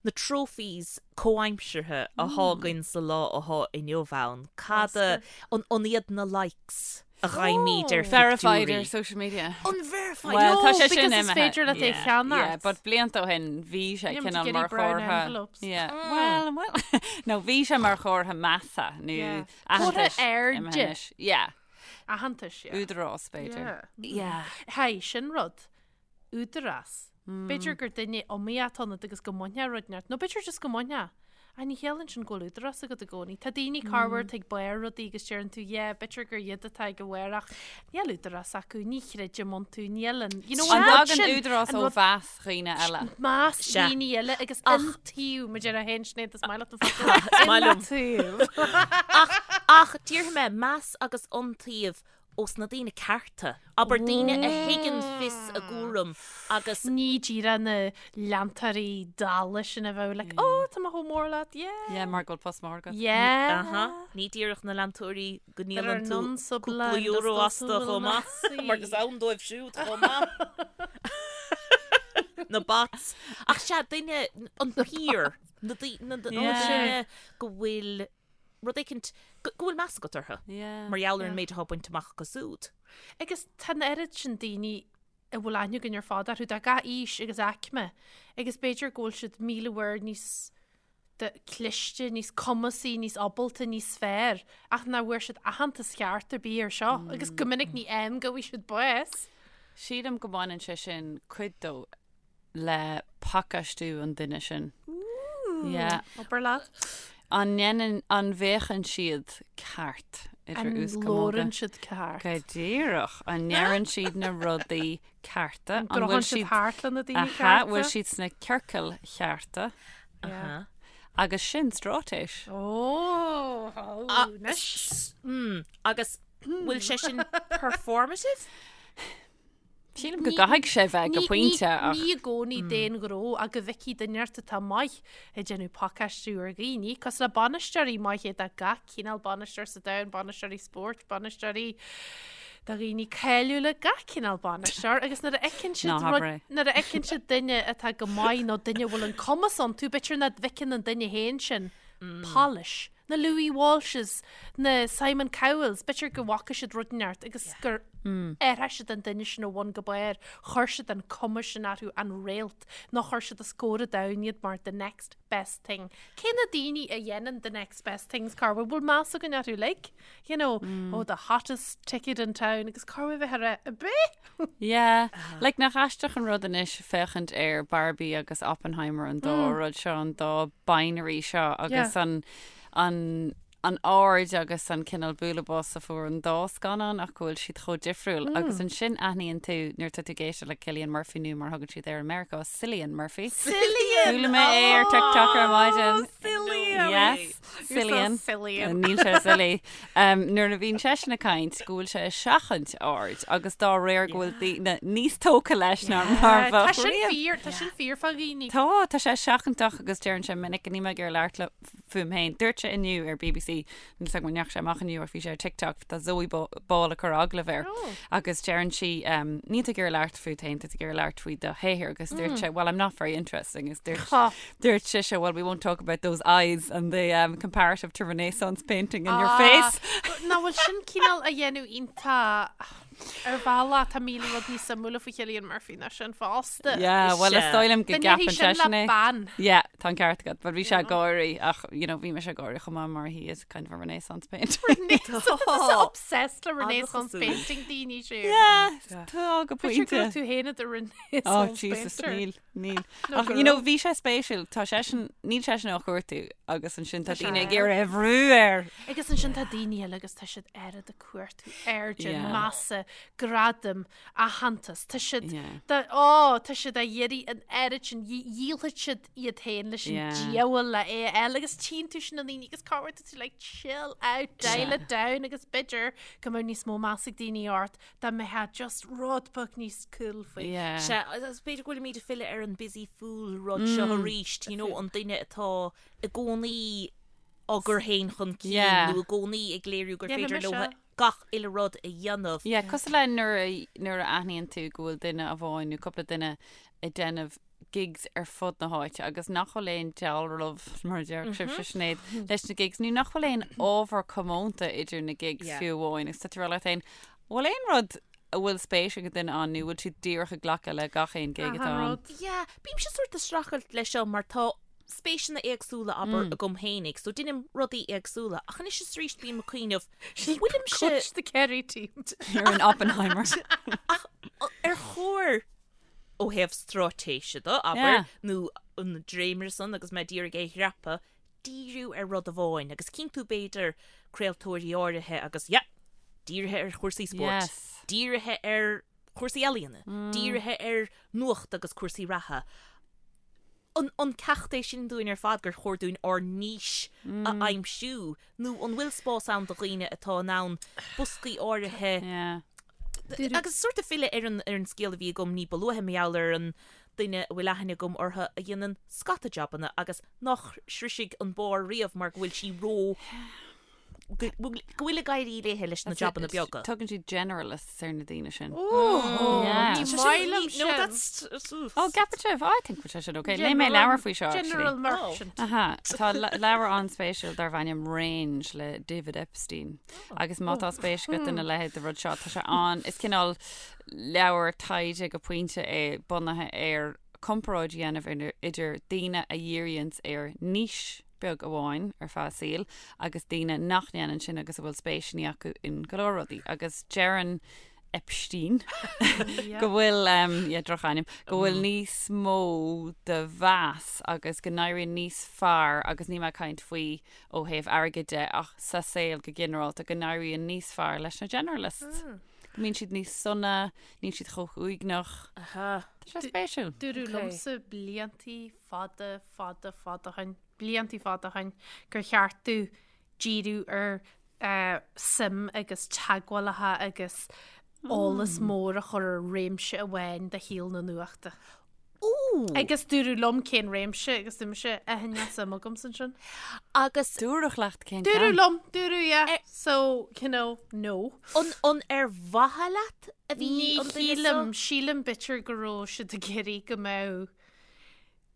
na trophies comhaimseartha athá againn sa lá athá inniu ann? Cad a, an, an iad na likes a fhaighimid ar Verified phictiúirí? ar social media. An verified? Well, No, tá sé because sin is imithe. féidir leat é Yeah, cheannacht. Yeah, but blianta ó shin bhí sé Níl muid cineál ag mar iarraidh brown chomhartha. envelopes. Yeah. Well, well, no, bhí sé mar chomhartha measa nó Yeah. aitheantais Comhartha airde. imithe anois. Yeah, Aitheantais, yeah. údarás b'fhéidir. Yeah. Yeah. Hey, sin rud. Údarás. B'fhéidir gur duine iomaíoch atá ionat agus go mbainfeá rud inteacht, nó b'fhéidir just go mbainfeá. Ach ní chiallaíonn sin go bhfuil údarás agat i gcónaí. Tá daoine corruair atá ag barr rudaí agus deireann tú yeah, b'fhéidir gur iad atá ag a bharr ach níl údarás acu, ní chreidim iontu, níl an, you know, An an rud dtagann sin, údarás an ó rud mheas dhaoine eile? meas Sea. daoine eile agus Ach- iontaoibh, mar deir féin Sinéad, is maith leat an focal. Is maith liom. Iontaoibh. Ach, ach déarfaidh mé meas agus iontaoibh ós na daoine cearta, abair daoine a thuigeann fios a gcúram agus. Ní díreach na leantóirí dalla sin a bheadh like, oh, tá mé chomh mór leat, yeah. Yeah, mar go bhfuil post mór agat. Yeah. Aha, ní díreach na leantóirí go There are ndíolann tú none so cúpla blind as euro those astu who will chomh not maith, see. mar is ann dóibh siúd chomh maith. Na bots. Ach sea, duine, an peer, na daoine go bhfuil rud éicint go bhfuil meas agat orthu mar gheall ar an méid atá bainte amach acu siúd. Agus tá an oiread sin daoine a bhfuil aithne againn ar fad orthu, de gach aois agus aicme, agus b'fhéidir go bhfuil siad 1,000 uair níos cliste, níos cumasaí, níos ábalta, níos fearr, ach nach bhfuair siad aitheantas ceart ar bith ar seo, agus go minic ní am go bhfaighidh siad bás. Sílim go mbaineann sé sin cuid dó le pacáistiú an duine sin. Yeah. Obair leat. An ndéanann, an bhféachann siad ceart idir An uaschamóga? labhrann siad ceart? Go díreach. An ndeireann siad na rudaí cearta? An gcruthann siad thart le na daoine Aha, cearta? bhfuil siad sna ciorcail chearta? Yeah. Agus sin straitéis. Ó, anois. Mm, agus bhfuil sé sin performative? Sílim go gcaithfidh sé bheith go pointe ach. Ní i gcónaí d'aon ghnó ach go bhfeicfidh duine ort atá maith ag déanamh pacáistiú ar dhaoine, cosúil le bainisteoirí maithe de gach cineál bainisteoir sa domhan, bainisteoirí spóirt, bainisteoirí de dhaoine cáiliúla, gach cineál bainisteoir agus nuair a fheiceann siad rud, nuair a fheiceann siad duine atá go maith nó duine a bhfuil an cumas iontu, b'fhéidir nach bhfeiceann an duine féin sin polish. na Louis Walshes, na Simon Cowells, b'fhéidir go bhfaca siad rud inteacht agus gur athraigh siad an duine sin ó bhun go barr, chuir siad an cuma sin orthu, an réalt, nó chuir siad os comhair an domhain iad mar the next best thing. Cé na daoine a dhéanann the next best things, cá bhfuil bhfuil meas againn orthu, like, you know, oh, the hottest ticket in town, agus cá bhfuil bheith ar a bith? Yeah, like nach aisteach an rud anois féachaint ar Barbie agus Oppenheimer an dá rud seo, an dá binary seo agus an an an aird agus an cineál bualadh bos a fuair an dá scannán ach go bhfuil siad chomh difriúil agus ansin aithníonn tú nuair atá tú ag éisteacht le Cillian Murphy nó mar thugann siad air i Meiriceá, Cillian Murphy. Cillian! Chuala mé é ar TikTok ar maidin. Cillian! Yes, Cillian. Cillian. Níl sé silly. Um, nuair a bhíonn seisean ag caint go bhfuil sé ag seachaint aird agus dá réir go bhfuil daoine níos tógtha leis ná mar Tá bheadh sin riamh. fíor, tá sin fíor fá dhaoine. Tá, tá sé seachantach agus deireann sé minic níl mé ag iarraidh labhairt le fúm féin. Dúirt sé inniu ar BBC, níl 's agam an ndeachaigh sé amach inniu ach bhí sé ar TikTok, tá Zoe Ball ag cur agallamh air agus deireann sí um, níl tú ag iarraidh labhairt fút féin, tá tú ag iarraidh labhairt faoi do shaothar agus dúirt sé, well I'm not very interesting agus dúirt Dúirt sise, well we won't talk about those eyes and the um, comparative to Renaissance painting in your face. Nach bhfuil sin cineál a dhéanamh iontach. Ar bhealach, tá 1000 rud níos suimiúla faoi Chillian Murphy ná sin fosta. Yeah, well is dóigh liom go Dá ndéarfaí gceapann sin le seisean é. bean. Yeah, tá an ceart agat, but bhí sé ag gáirí ach, you know, bhí mise ag gáirí chomh maith mar he is kind of a renaissance painter. Renaissance obsessed le Renaissance An-chosúil. painting daoine siúd. Yeah, tá go B'fhéidir go pointe. raibh tú féin i do Oh, Renaissance Jesus, painter. níl, níl. No, Ach, go you know, raibh. bhí sé spéisiúil, tá seisean, níl seisean á chuartú agus ansin tá Tá sé daoine ag air. iarraidh a bhrú air. Agus ansin tá daoine eile agus tá siad oiread ag cuartú airde, Yeah. measa, gradaim, aitheantas. Tá siad, Yeah. tá, ó, tá siad á iarraidh an oiread sin, dhíolfaidh siad iad féin leis an Yeah. diabhal le é a fháil agus tchíonn tú sin na daoine agus cá bhfuair tú tú like chill out, dial Yeah. it down agus b'fhéidir go mbeadh níos mó meas ag daoine ort dá mbeifeá just rud beag níos cool faoi. Yeah. Sea, agus b'fhéidir go bhfuilimid ag filleadh ar an busy fool rud seo arís, you know, an duine atá i gcónaí á gcur féin chun cinn Yeah. nó i gcónaí ag léiriú gur Déanfaidh féidir mise. leo gach uile rud a dhéanamh. Yeah, cosúil le nuair a, nuair a aithníonn tú go bhfuil duine amháin nó cúpla duine ag déanamh gigs ar fud na háite agus nach bhfuil aon dealramh, mar a déarfadh sibhse Sinéad, leis na gigs nó nach bhfuil aon ábhar comónta idir na gigs Yeah. fiú amháin agus tá tú ag rá leat féin, bhfuil aon rud a bhfuil spéis ag an duine ann nó bhfuil siad díreach ag glacadh le gach aon gig atá Achan ann? rud. Yeah, bímse sórt ag streachailt leis seo mar tá spéiseanna éagsúla abair agam fhéinig, so deinim rudaí éagsúla, ach anois is arís bím ag cuimhneamh, bhfuilimse Coach the Kerry team. You're an Oppenheimer. ach ar chóir ó thaobh straitéise de, abair, Yeah. nó an dréimire san agus mé d'iarraidh é a dhreapadh, díriú ar rud amháin agus cinntiú b'fhéidir craoltóirí áirithe agus yeah, dírithe ar chúrsaí spóirt, Yes. dírithe ar chúrsaí ealaíona, dírithe ar nuacht agus cúrsaí reatha. An, an ceacht é sin dúinn ar fad gur chóir dúinn ár niche a aimsiú nó an bhfuil spás ann do dhaoine atá in ann boscaí áirithe Yeah. agus sórt ag filleadh ar an, ar an scéal a bhí agam ní ba luaithe mar gheall ar an duine a bhfuil aithne agam orthu a dhéanann scata jabanna agus nach sroisfidh an barr riamh mar go bhfuil sí ró go bhfuil ag éirí léithe leis na jabanna beaga. Tugann siad generalists ar na daoine sin. Ooh, Yeah. ní Sé maith sin- liom No, sin. that's... Oh, ceapann sibh? I think sé sin okay. Léigh mé leabhar faoi seo, actually. General merchant. Aha, tá le- leabhar an-spéisiúil darb ainm Range le David Epstein. Agus má tá spéis agat ina leithéid de rud seo, tá sé an, is cineál leabhar taighde go pointe é bunaithe ar comparáid a dhéanamh idir daoine a dhíríonns ar niche beag amháin ar feadh a saoil agus daoine nach ndéanann sin agus a bhfuil spéiseanna acu in go leor rudaí. Agus deireann Epstein go bhfuil, yeah, drochainm, go bhfuil níos mó de mheas agus go n-éiríonn níos fearr agus níl mé ag caint faoi ó thaobh airgid de ach sa saol go ginearálta go n-éiríonn níos fearr leis na generalists. Go mbíonn siad níos sona, níl siad chomh huaigneach. Aha. Tá sé spéisiúil. Dúradh liomsa bliantaí fada, fada, fada ó shin, bliantaí fada ó shin, gur cheart domh díriú ar suim agus teagmhálacha agus eolas mór a chur ar réimse amháin de shaol na nuachta. Ooh! Agus dúradh liom cén réimse agus dúirt mise, eh, níl suim agamsa ansin. Agus Dúradh leat cén Dúradh ceann? liom, dúradh, yeah. So, you know, no. an, an ar mhaithe leat a bhí Ní an duine shílim, seo? sílim b'fhéidir go raibh siad ag iarraidh go mbeadh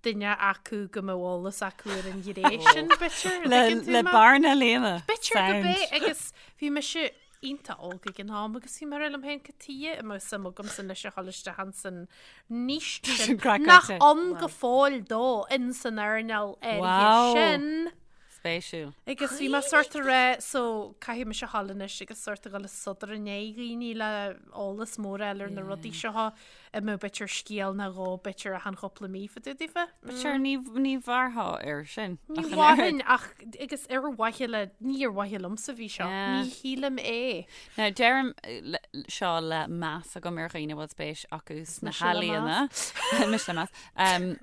duine acu go mbeadh eolas acu ar an ghné sin, b'fhéidir, an Le, dtuigeann tú le mé? bearna a líonadh. B'fhéidir go Sound. b'é agus bhí mise iontach óg ag an am agus bhí mé ag rá liom féin cad tuighe a mbeadh suim agamsa anois a dhul isteach ins an niche Sin sin craiceáilte. nach ann go fóill dó in san earnáil áirithe Wow. sin. Spéisiúil. Agus bhí mé sort ag rá so caithfidh mise a dhul anois agus sort a dhul ag sodar i ndiaidh dhaoine le eolas mór a fháil ar na rudaí seo a mbeadh b'fhéidir scéal nó dhó b'fhéidir achan chúpla mí fá dtaobh daofa. But sure, ní, ní mhairfeá air sin. Ní ach an oiread. mhairfinn ach agus ar mhaithe le, ní ar mhaithe liomsa a bhí seo, Yeah. ní shílim é. Now, deirim le, seo le meas agam ar dhaoine a bhfuil spéis acu sna Mise le healaíona. Mise le meas. Um,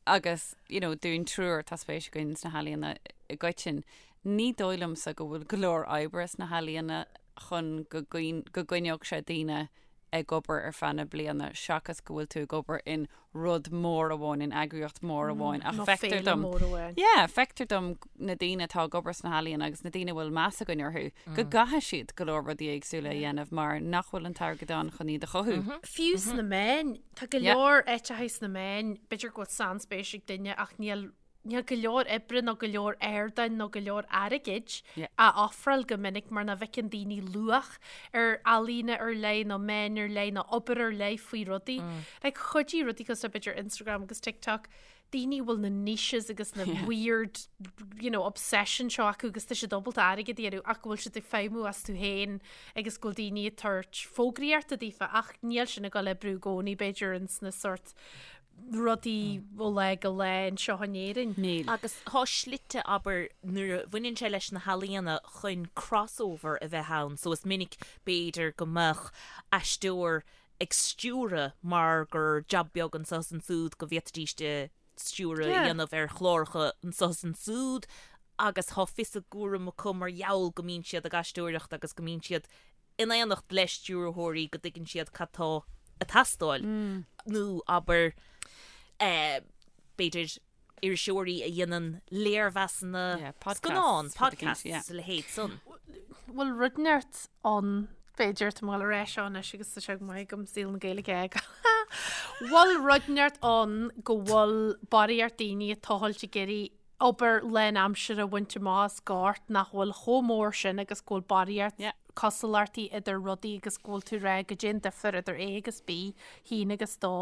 Agus, you know, dúinn triúr, tá spéis againn sna healaíona i gcoitinn. Ní dóigh liomsa go bhfuil go leor oibre sna healaíona chun go go gcoinneodh sé daoine ag obair ar feadh na bliana seachas go bhfuil tú ag obair in rud mór amháin, in eagraíocht mhór amháin. Ach Nó feictear féile dom, mór amháin. yeah, feictear dom na daoine atá ag obair sna healaíona agus na daoine a bhfuil meas againn orthu, go gcaithfidh siad go leor rudaí éagsúla a dhéanamh mar nach bhfuil an t-airgead ann chun iad a chothú. Fiú sna meáin, tá go leor áiteacha sna meáin, b'fhéidir go bhfuil sainspéis ag duine ach níl Níl go leor oibre nó go leor ardáin nó go leor airgid á ofráil go minic mar nach bhfeiceann daoine luach ar ealaíona ar leith nó meáin ar leith nó obair ar leith faoi rudaí. Like chuidigh rudaí cosúil le b'fhéidir Instagram agus TikTok, daoine a bhfuil na niches agus na weird you know, obsession seo acu agus tá siad ábalta airgead a dhéanamh ach go bhfuil siad ag feidhmiú astu féin agus go bhfuil daoine ag tabhairt fógraíochta daofa ach níl sin ag dul oibriú i gcónaí b'fhéidir ins na sort rudaí ó lá go lá anseo in Éirinn. Níl. Agus tá slite, abair, nuair a bhaineann sé leis na healaíona chun crossover a bheith ann, so is minic b'fhéidir go mbeadh aisteoir ag stiúradh mar gur jab beag anseo is ansúd go bhféadfaidís stiúradh a dhéanamh ar chláracha anseo is ansúd agus tá fios a gcúraim acu mar gheall go mbíonn siad ag aisteoireacht agus go mbíonn siad in éineacht le stiúrthóirí go dtuigeann siad cad tá ag teastáil nó abair b'fhéidir iriseoirí a dhéanann léirmheasanna scannán, podcasts is a leithéid san. Bhfuil rud inteacht ann b'fhéidir tá mé ag dul ar ais anois agus tá sé go maith agam saol na Gaeilge a fhágáil. Bhfuil rud inteacht ann go bhfuil barraíocht daoine ag tochailt ag iarraidh obair lánaimseartha a bhaint amach as gort nach bhfuil chomh mór sin agus go bhfuil barraíocht Yeah. cosúlachtaí idir rudaí agus go bhfuil tú ag rá goidé an difear idir A agus B, haon agus dó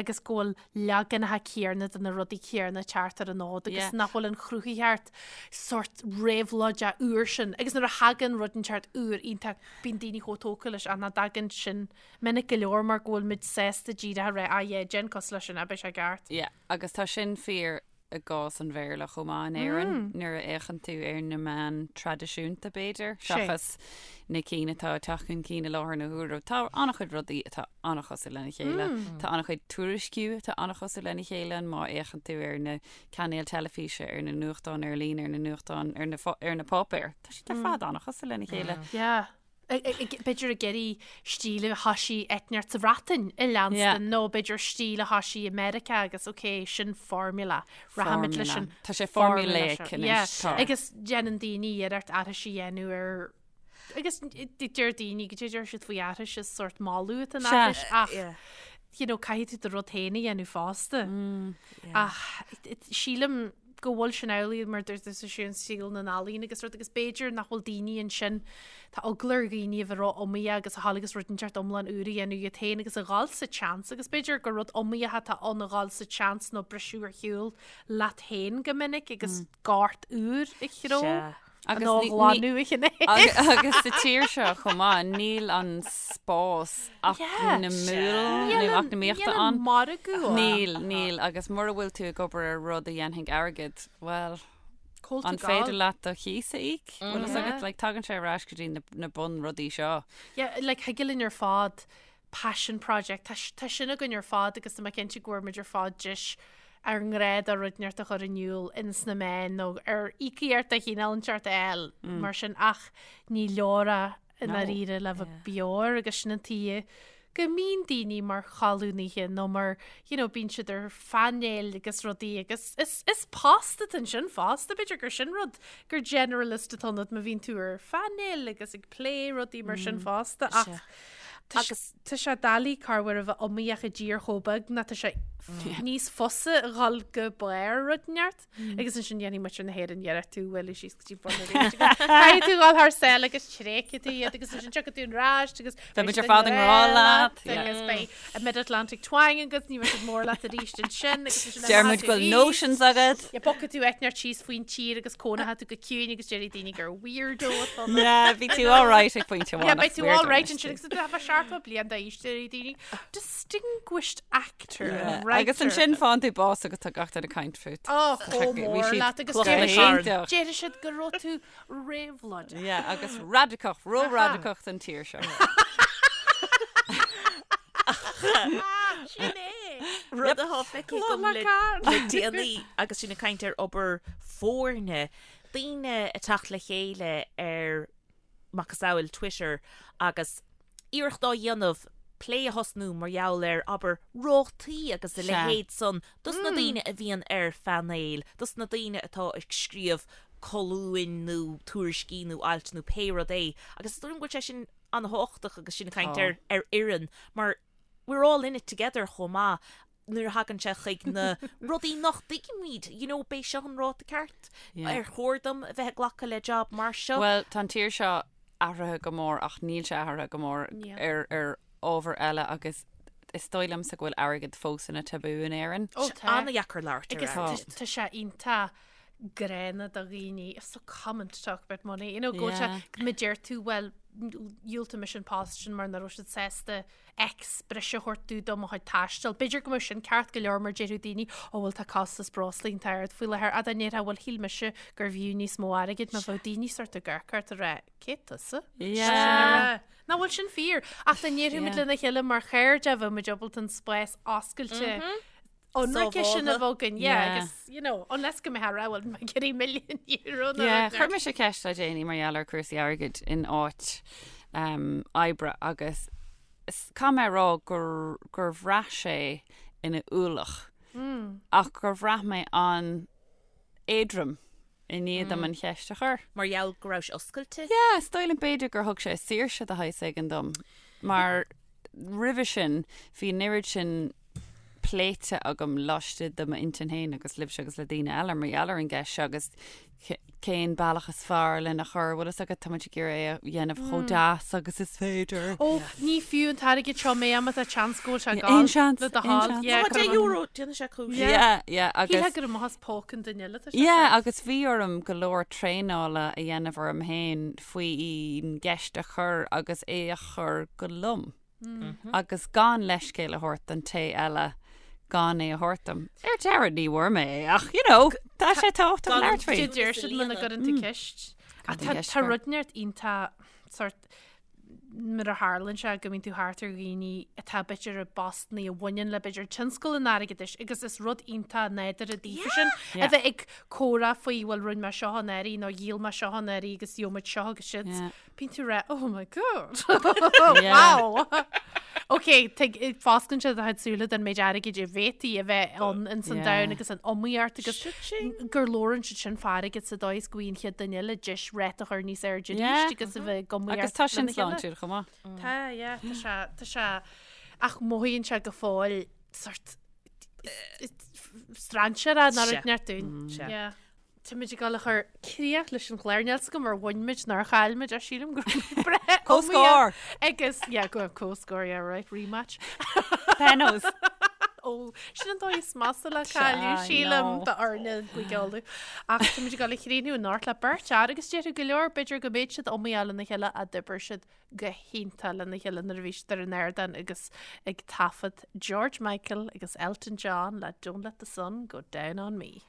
agus go bhfuil leaganacha céarna de na rudaí céarna ag teacht ar an fhód agus Yeah. nach bhfuil an chruthaitheacht sort réabhlóideach úr sin agus nuair a thagann rud inteacht úr iontach bíonn daoine chomh tógtha leis ach nach dtagann sin minic go leor mar go bhfuil muid sásta díreach a rá ah yeah déan cosúil leis sin beidh sé ceart. Yeah, agus tá sin fíor i gcás an Bhéarla chomh maith in Éirinn, nuair a fhéachann tú ar na meáin traidisiúnta, b'fhéidir, seachas na cinn atá ag teacht chun cinn i láthair na huaire. Tá an-chuid rudaí atá an-chosúil lena chéile. Tá an-chuid tuairisciú atá an-chosúil lena chéile, má fhéachann tú ar na cainéil teilifíse, ar na nuachtáin ar líne, ar na nuachtáin, ar na, ar na páipéir. Tá siad ar fad an-chosúil lena chéile. Yeah. B'fhéidir ag iarraidh stíl a thoisigh áit inteacht sa Bhreatain a leanstan nó b'fhéidir stíl a thoisigh i Meiriceá agus ok, sin formula. Rachaimid leis an Tá sé formulaic anois. Tá. Agus déanann daoine iarracht aithris a dhéanamh ar agus deir daoine go deir siad faoi aithris is sort moladh atá in aithris ach you know, caithfidh tú do rud féin a dhéanamh fosta. Ach sílim go bhfuil sin amhlaidh mar dúirt tusa sin saol na n-ealaíon agus rud agus b'fhéidir nach bhfuil daoine ansin tá eagla ar dhaoine a bheith ró-iomaíoch agus a dhul agus rud inteacht iomlán úr a dhéanamh iad féin agus a dhul sa tseans agus b'fhéidir gur rud iomaíoch atá ann a dhul sa tseans nó briseadh ar shiúl leat féin go minic agus gort úr a chró. Sea. Agus Nó ní- ní- ghlanadh a chinneadh. Agus sa tír seo chomh maith, níl an spás eacnamúil nó eacnamaíochta Níl an ann. margadh ann. Níl, níl, agus mura bhfuil tú ag obair ar rud a dhéanfaidh airgead, bhuel, Cá bhfuil tú an ag féidir gabháil? leat do chíos a íoc? Bhfuil fhios agat, like, tagann sé ar ais go dtí na, na bunrudaí seo. Yeah, like, thig linn ar fad passion project, tá, tá sin againn ar fad agus tá mé cinnte go bhfuair muid ar fad deis ár ngrá do rud inteacht a chur in iúl ins na meáin nó ar íocaíocht de chineál inteacht a fháil mar sin ach ní leor é i ndáiríre le bheith beo air agus sin an tuige go mbíonn daoine mar cholúnaithe nó mar you know bíonn siad ar phainéil agus rudaí agus is is post atá ansin fosta b'fhéidir gur sin rud gur generalist atá ionat má bhíonn tú ar phainéil agus ag plé rudaí mar sin fosta ach Agus tá sé doiligh corruair a bheith iomaíoch i dtír chomh beag ná tá sé níos fusa a dhul go barr rud inteacht agus ansin dhéanfaidh muintir na hÉireann iarracht tú a bhualadh síos go dtí bun arís agus caithfidh tú dhul thar sáile agus tréigfidh tú iad agus ansin tiocfaidh tú ar ais agus Beidh muid ar fad i ngrá leat. agus beidh a Mid-Atlantic twang agat ní bheidh siad mór leat arís ansin agus ansin Deir muid go bhfuil notions agat. Yeah, bogfaidh tú áit inteacht síos faoin tír agus cónóidh tú go ciúin agus déarfaidh daoine gur weirdo atá ionat. Yeah, bhí tú all right ag pointe amháin. Yeah, beidh tú all right ansin agus tú bheith 70 bliain d'aois déarfaidh daoine distinguished actor and writer. Agus ansin faigheann tú bás agus tá gach duine ag caint fút. Oh, chomh mór leat agus déarfaidh siad go raibh tú réabhlóideach. Yeah, agus radacach, ró-radacach don tír seo. Sin é! Rud atá feicthe agam le déanaí agus sinn ag caint ar obair foirne, daoine ag teacht le chéile ar macasamhail Twitter agus iarracht á dhéanamh plé a thosnú mar gheall ar, abair, rátaí agus a leithéid san dos na daoine a bhíonn ar phainéil, dos na daoine atá ag scríobh colúin nó tuairiscí nó ailt nó pé rud é. Agus is dóigh liom go bhfuil sé sin an-thábhachtach agus sinn ag caint ar ar fhoireann mar we're all in it together chomh maith. nuair a thagann sé chuig na rudaí nach dtuigimid, you know, b'é seo an ráta ceart, ar chóir dom a bheith ag glacadh le job mar seo? Bhuel, tá an tír seo athraithe go mór ach níl sé athraithe go mór ar ar ábhar eile agus is dóigh liomsa go bhfuil airgead fós ina tabú in Éirinn. Ó tá. An-dheacair labhairt ar Agus airgead. tá sé iontach gránna do dhaoine, it's so common to talk about money, you know, go bhfuil sé, má deir tú, bhuel, dhiúltaigh mise an post sin mar nach raibh siad sásta X breise a thabhairt do mo chuid taistil. B'fhéidir go mbeadh sin ceart go leor mar déarfadh daoine, ó bhuel tá costas breosla iontach ard faoi láthair, ach dá ndéarfá bhuel shíl mise gurbh fhiú níos mó airgid má bheadh daoine sort ag amharc ort ag rá, cé tusa? Yeah. Nach bhfuil sin fíor? Ach dá ndéarfaimid lena chéile mar chairde bheadh muid ábalta an spás oscailte ionraice sin a bheith againn, yeah, agus, you know, unless go mbeifeá ag rá bhuel mé ag iarraidh milliún euro nó Yeah, chuir mise ceist le déanaí mar gheall ar cúrsaí airgid in áit um, oibre agus caithfidh mé a rá gur, gur bhraith sé ina ualach mm. ach gur bhraith mé an-éadrom i ndiaidh dom an cheist a chur. Mar gheall go raibh sé oscailte? Yeah, is dóigh liom b'fhéidir gur thug sé saoirse de shaghas éigin dom mar roimhe sin bhí an oiread sin pléite agam laistigh de m'intinn féin agus libhse agus le daoine eile mar gheall ar an gceist seo agus cén bealach is fearr lena chur, bhfuil fhios agat, tá muid ag iarraidh é a dhéanamh chomh deas agus is féidir. Ó, ní fiú an t-airgead seo mé má tá seans go bhfuil sé ag gabháil. Aon seans, Le do aon thoil. seans. Yeah, Tá €10, déanfaidh sé cúis. Yeah, yeah, agus. Shílfeá gur amach as póca an duine eile atá sé. Yeah, agus bhí orm go leor traenála a dhéanamh orm féin faoin gceist a chur agus é a chur go lom. Agus gan leithscéal a thabhairt don té eile gan é a thabhairt dom. Ar deireadh ní bhfuair mé é ach, you know, tá sé tábhachtach labhairt faoi. Deir siad muna gcuireann tú ceist. Ach tá tá rud inteacht iontach sort nuair a tharlaíonn sé go mbíonn tú thart ar dhaoine atá b'fhéidir i bpostanna a bhaineann le b'fhéidir tionscal an airgeadais agus is rud iontach nádúrtha daofa sin a bheith ag comhrá faoi bhuel rinne mé seo anuraidh nó dhíol mé seo anuraidh agus gheobhaidh muid seo agus siad. Bíonn tú ag rá, oh my god, wow. Ok, fosclann sé do chuid súile den méid airgid a bhféadfaí a bheith ann in san domhan agus an iomaíocht agus gur labhrann siad sin fá airgead sa dóigh is go bhfaigheann an chéad duine eile deis ráta a chur níos airde arís agus a bheith ag iomaíocht Agus tá sin sláintiúil chomh maith. Tá, yeah, tá sé, tá sé, ach mothaíonn sé go fóill sort strainséartha nó rud inteacht dúinn. Yeah. Táimid ag dul a chur críoch leis an chlár. Níl 's agam ar bhain muid nó ar chaill muid ach sílim go raibh muid breá Comhscór! Agus, yeah, go comhscór, yeah, right, rematch. Penos. Ó, sin an dóigh is measa le cailleadh, sílim, d'fhoirne Chúige Uladh. Ach táimid ag dul a chríochnú anocht le beirt fhear agus déarfadh go leor, b'fhéidir go mbeadh siad iomaíoch lena chéile ach d'oibir siad go hiontach lena chéile nuair a bhí siad ar an ardán agus ag taifead George Michael agus Elton John le Don't Let the Sun Go Down on Me.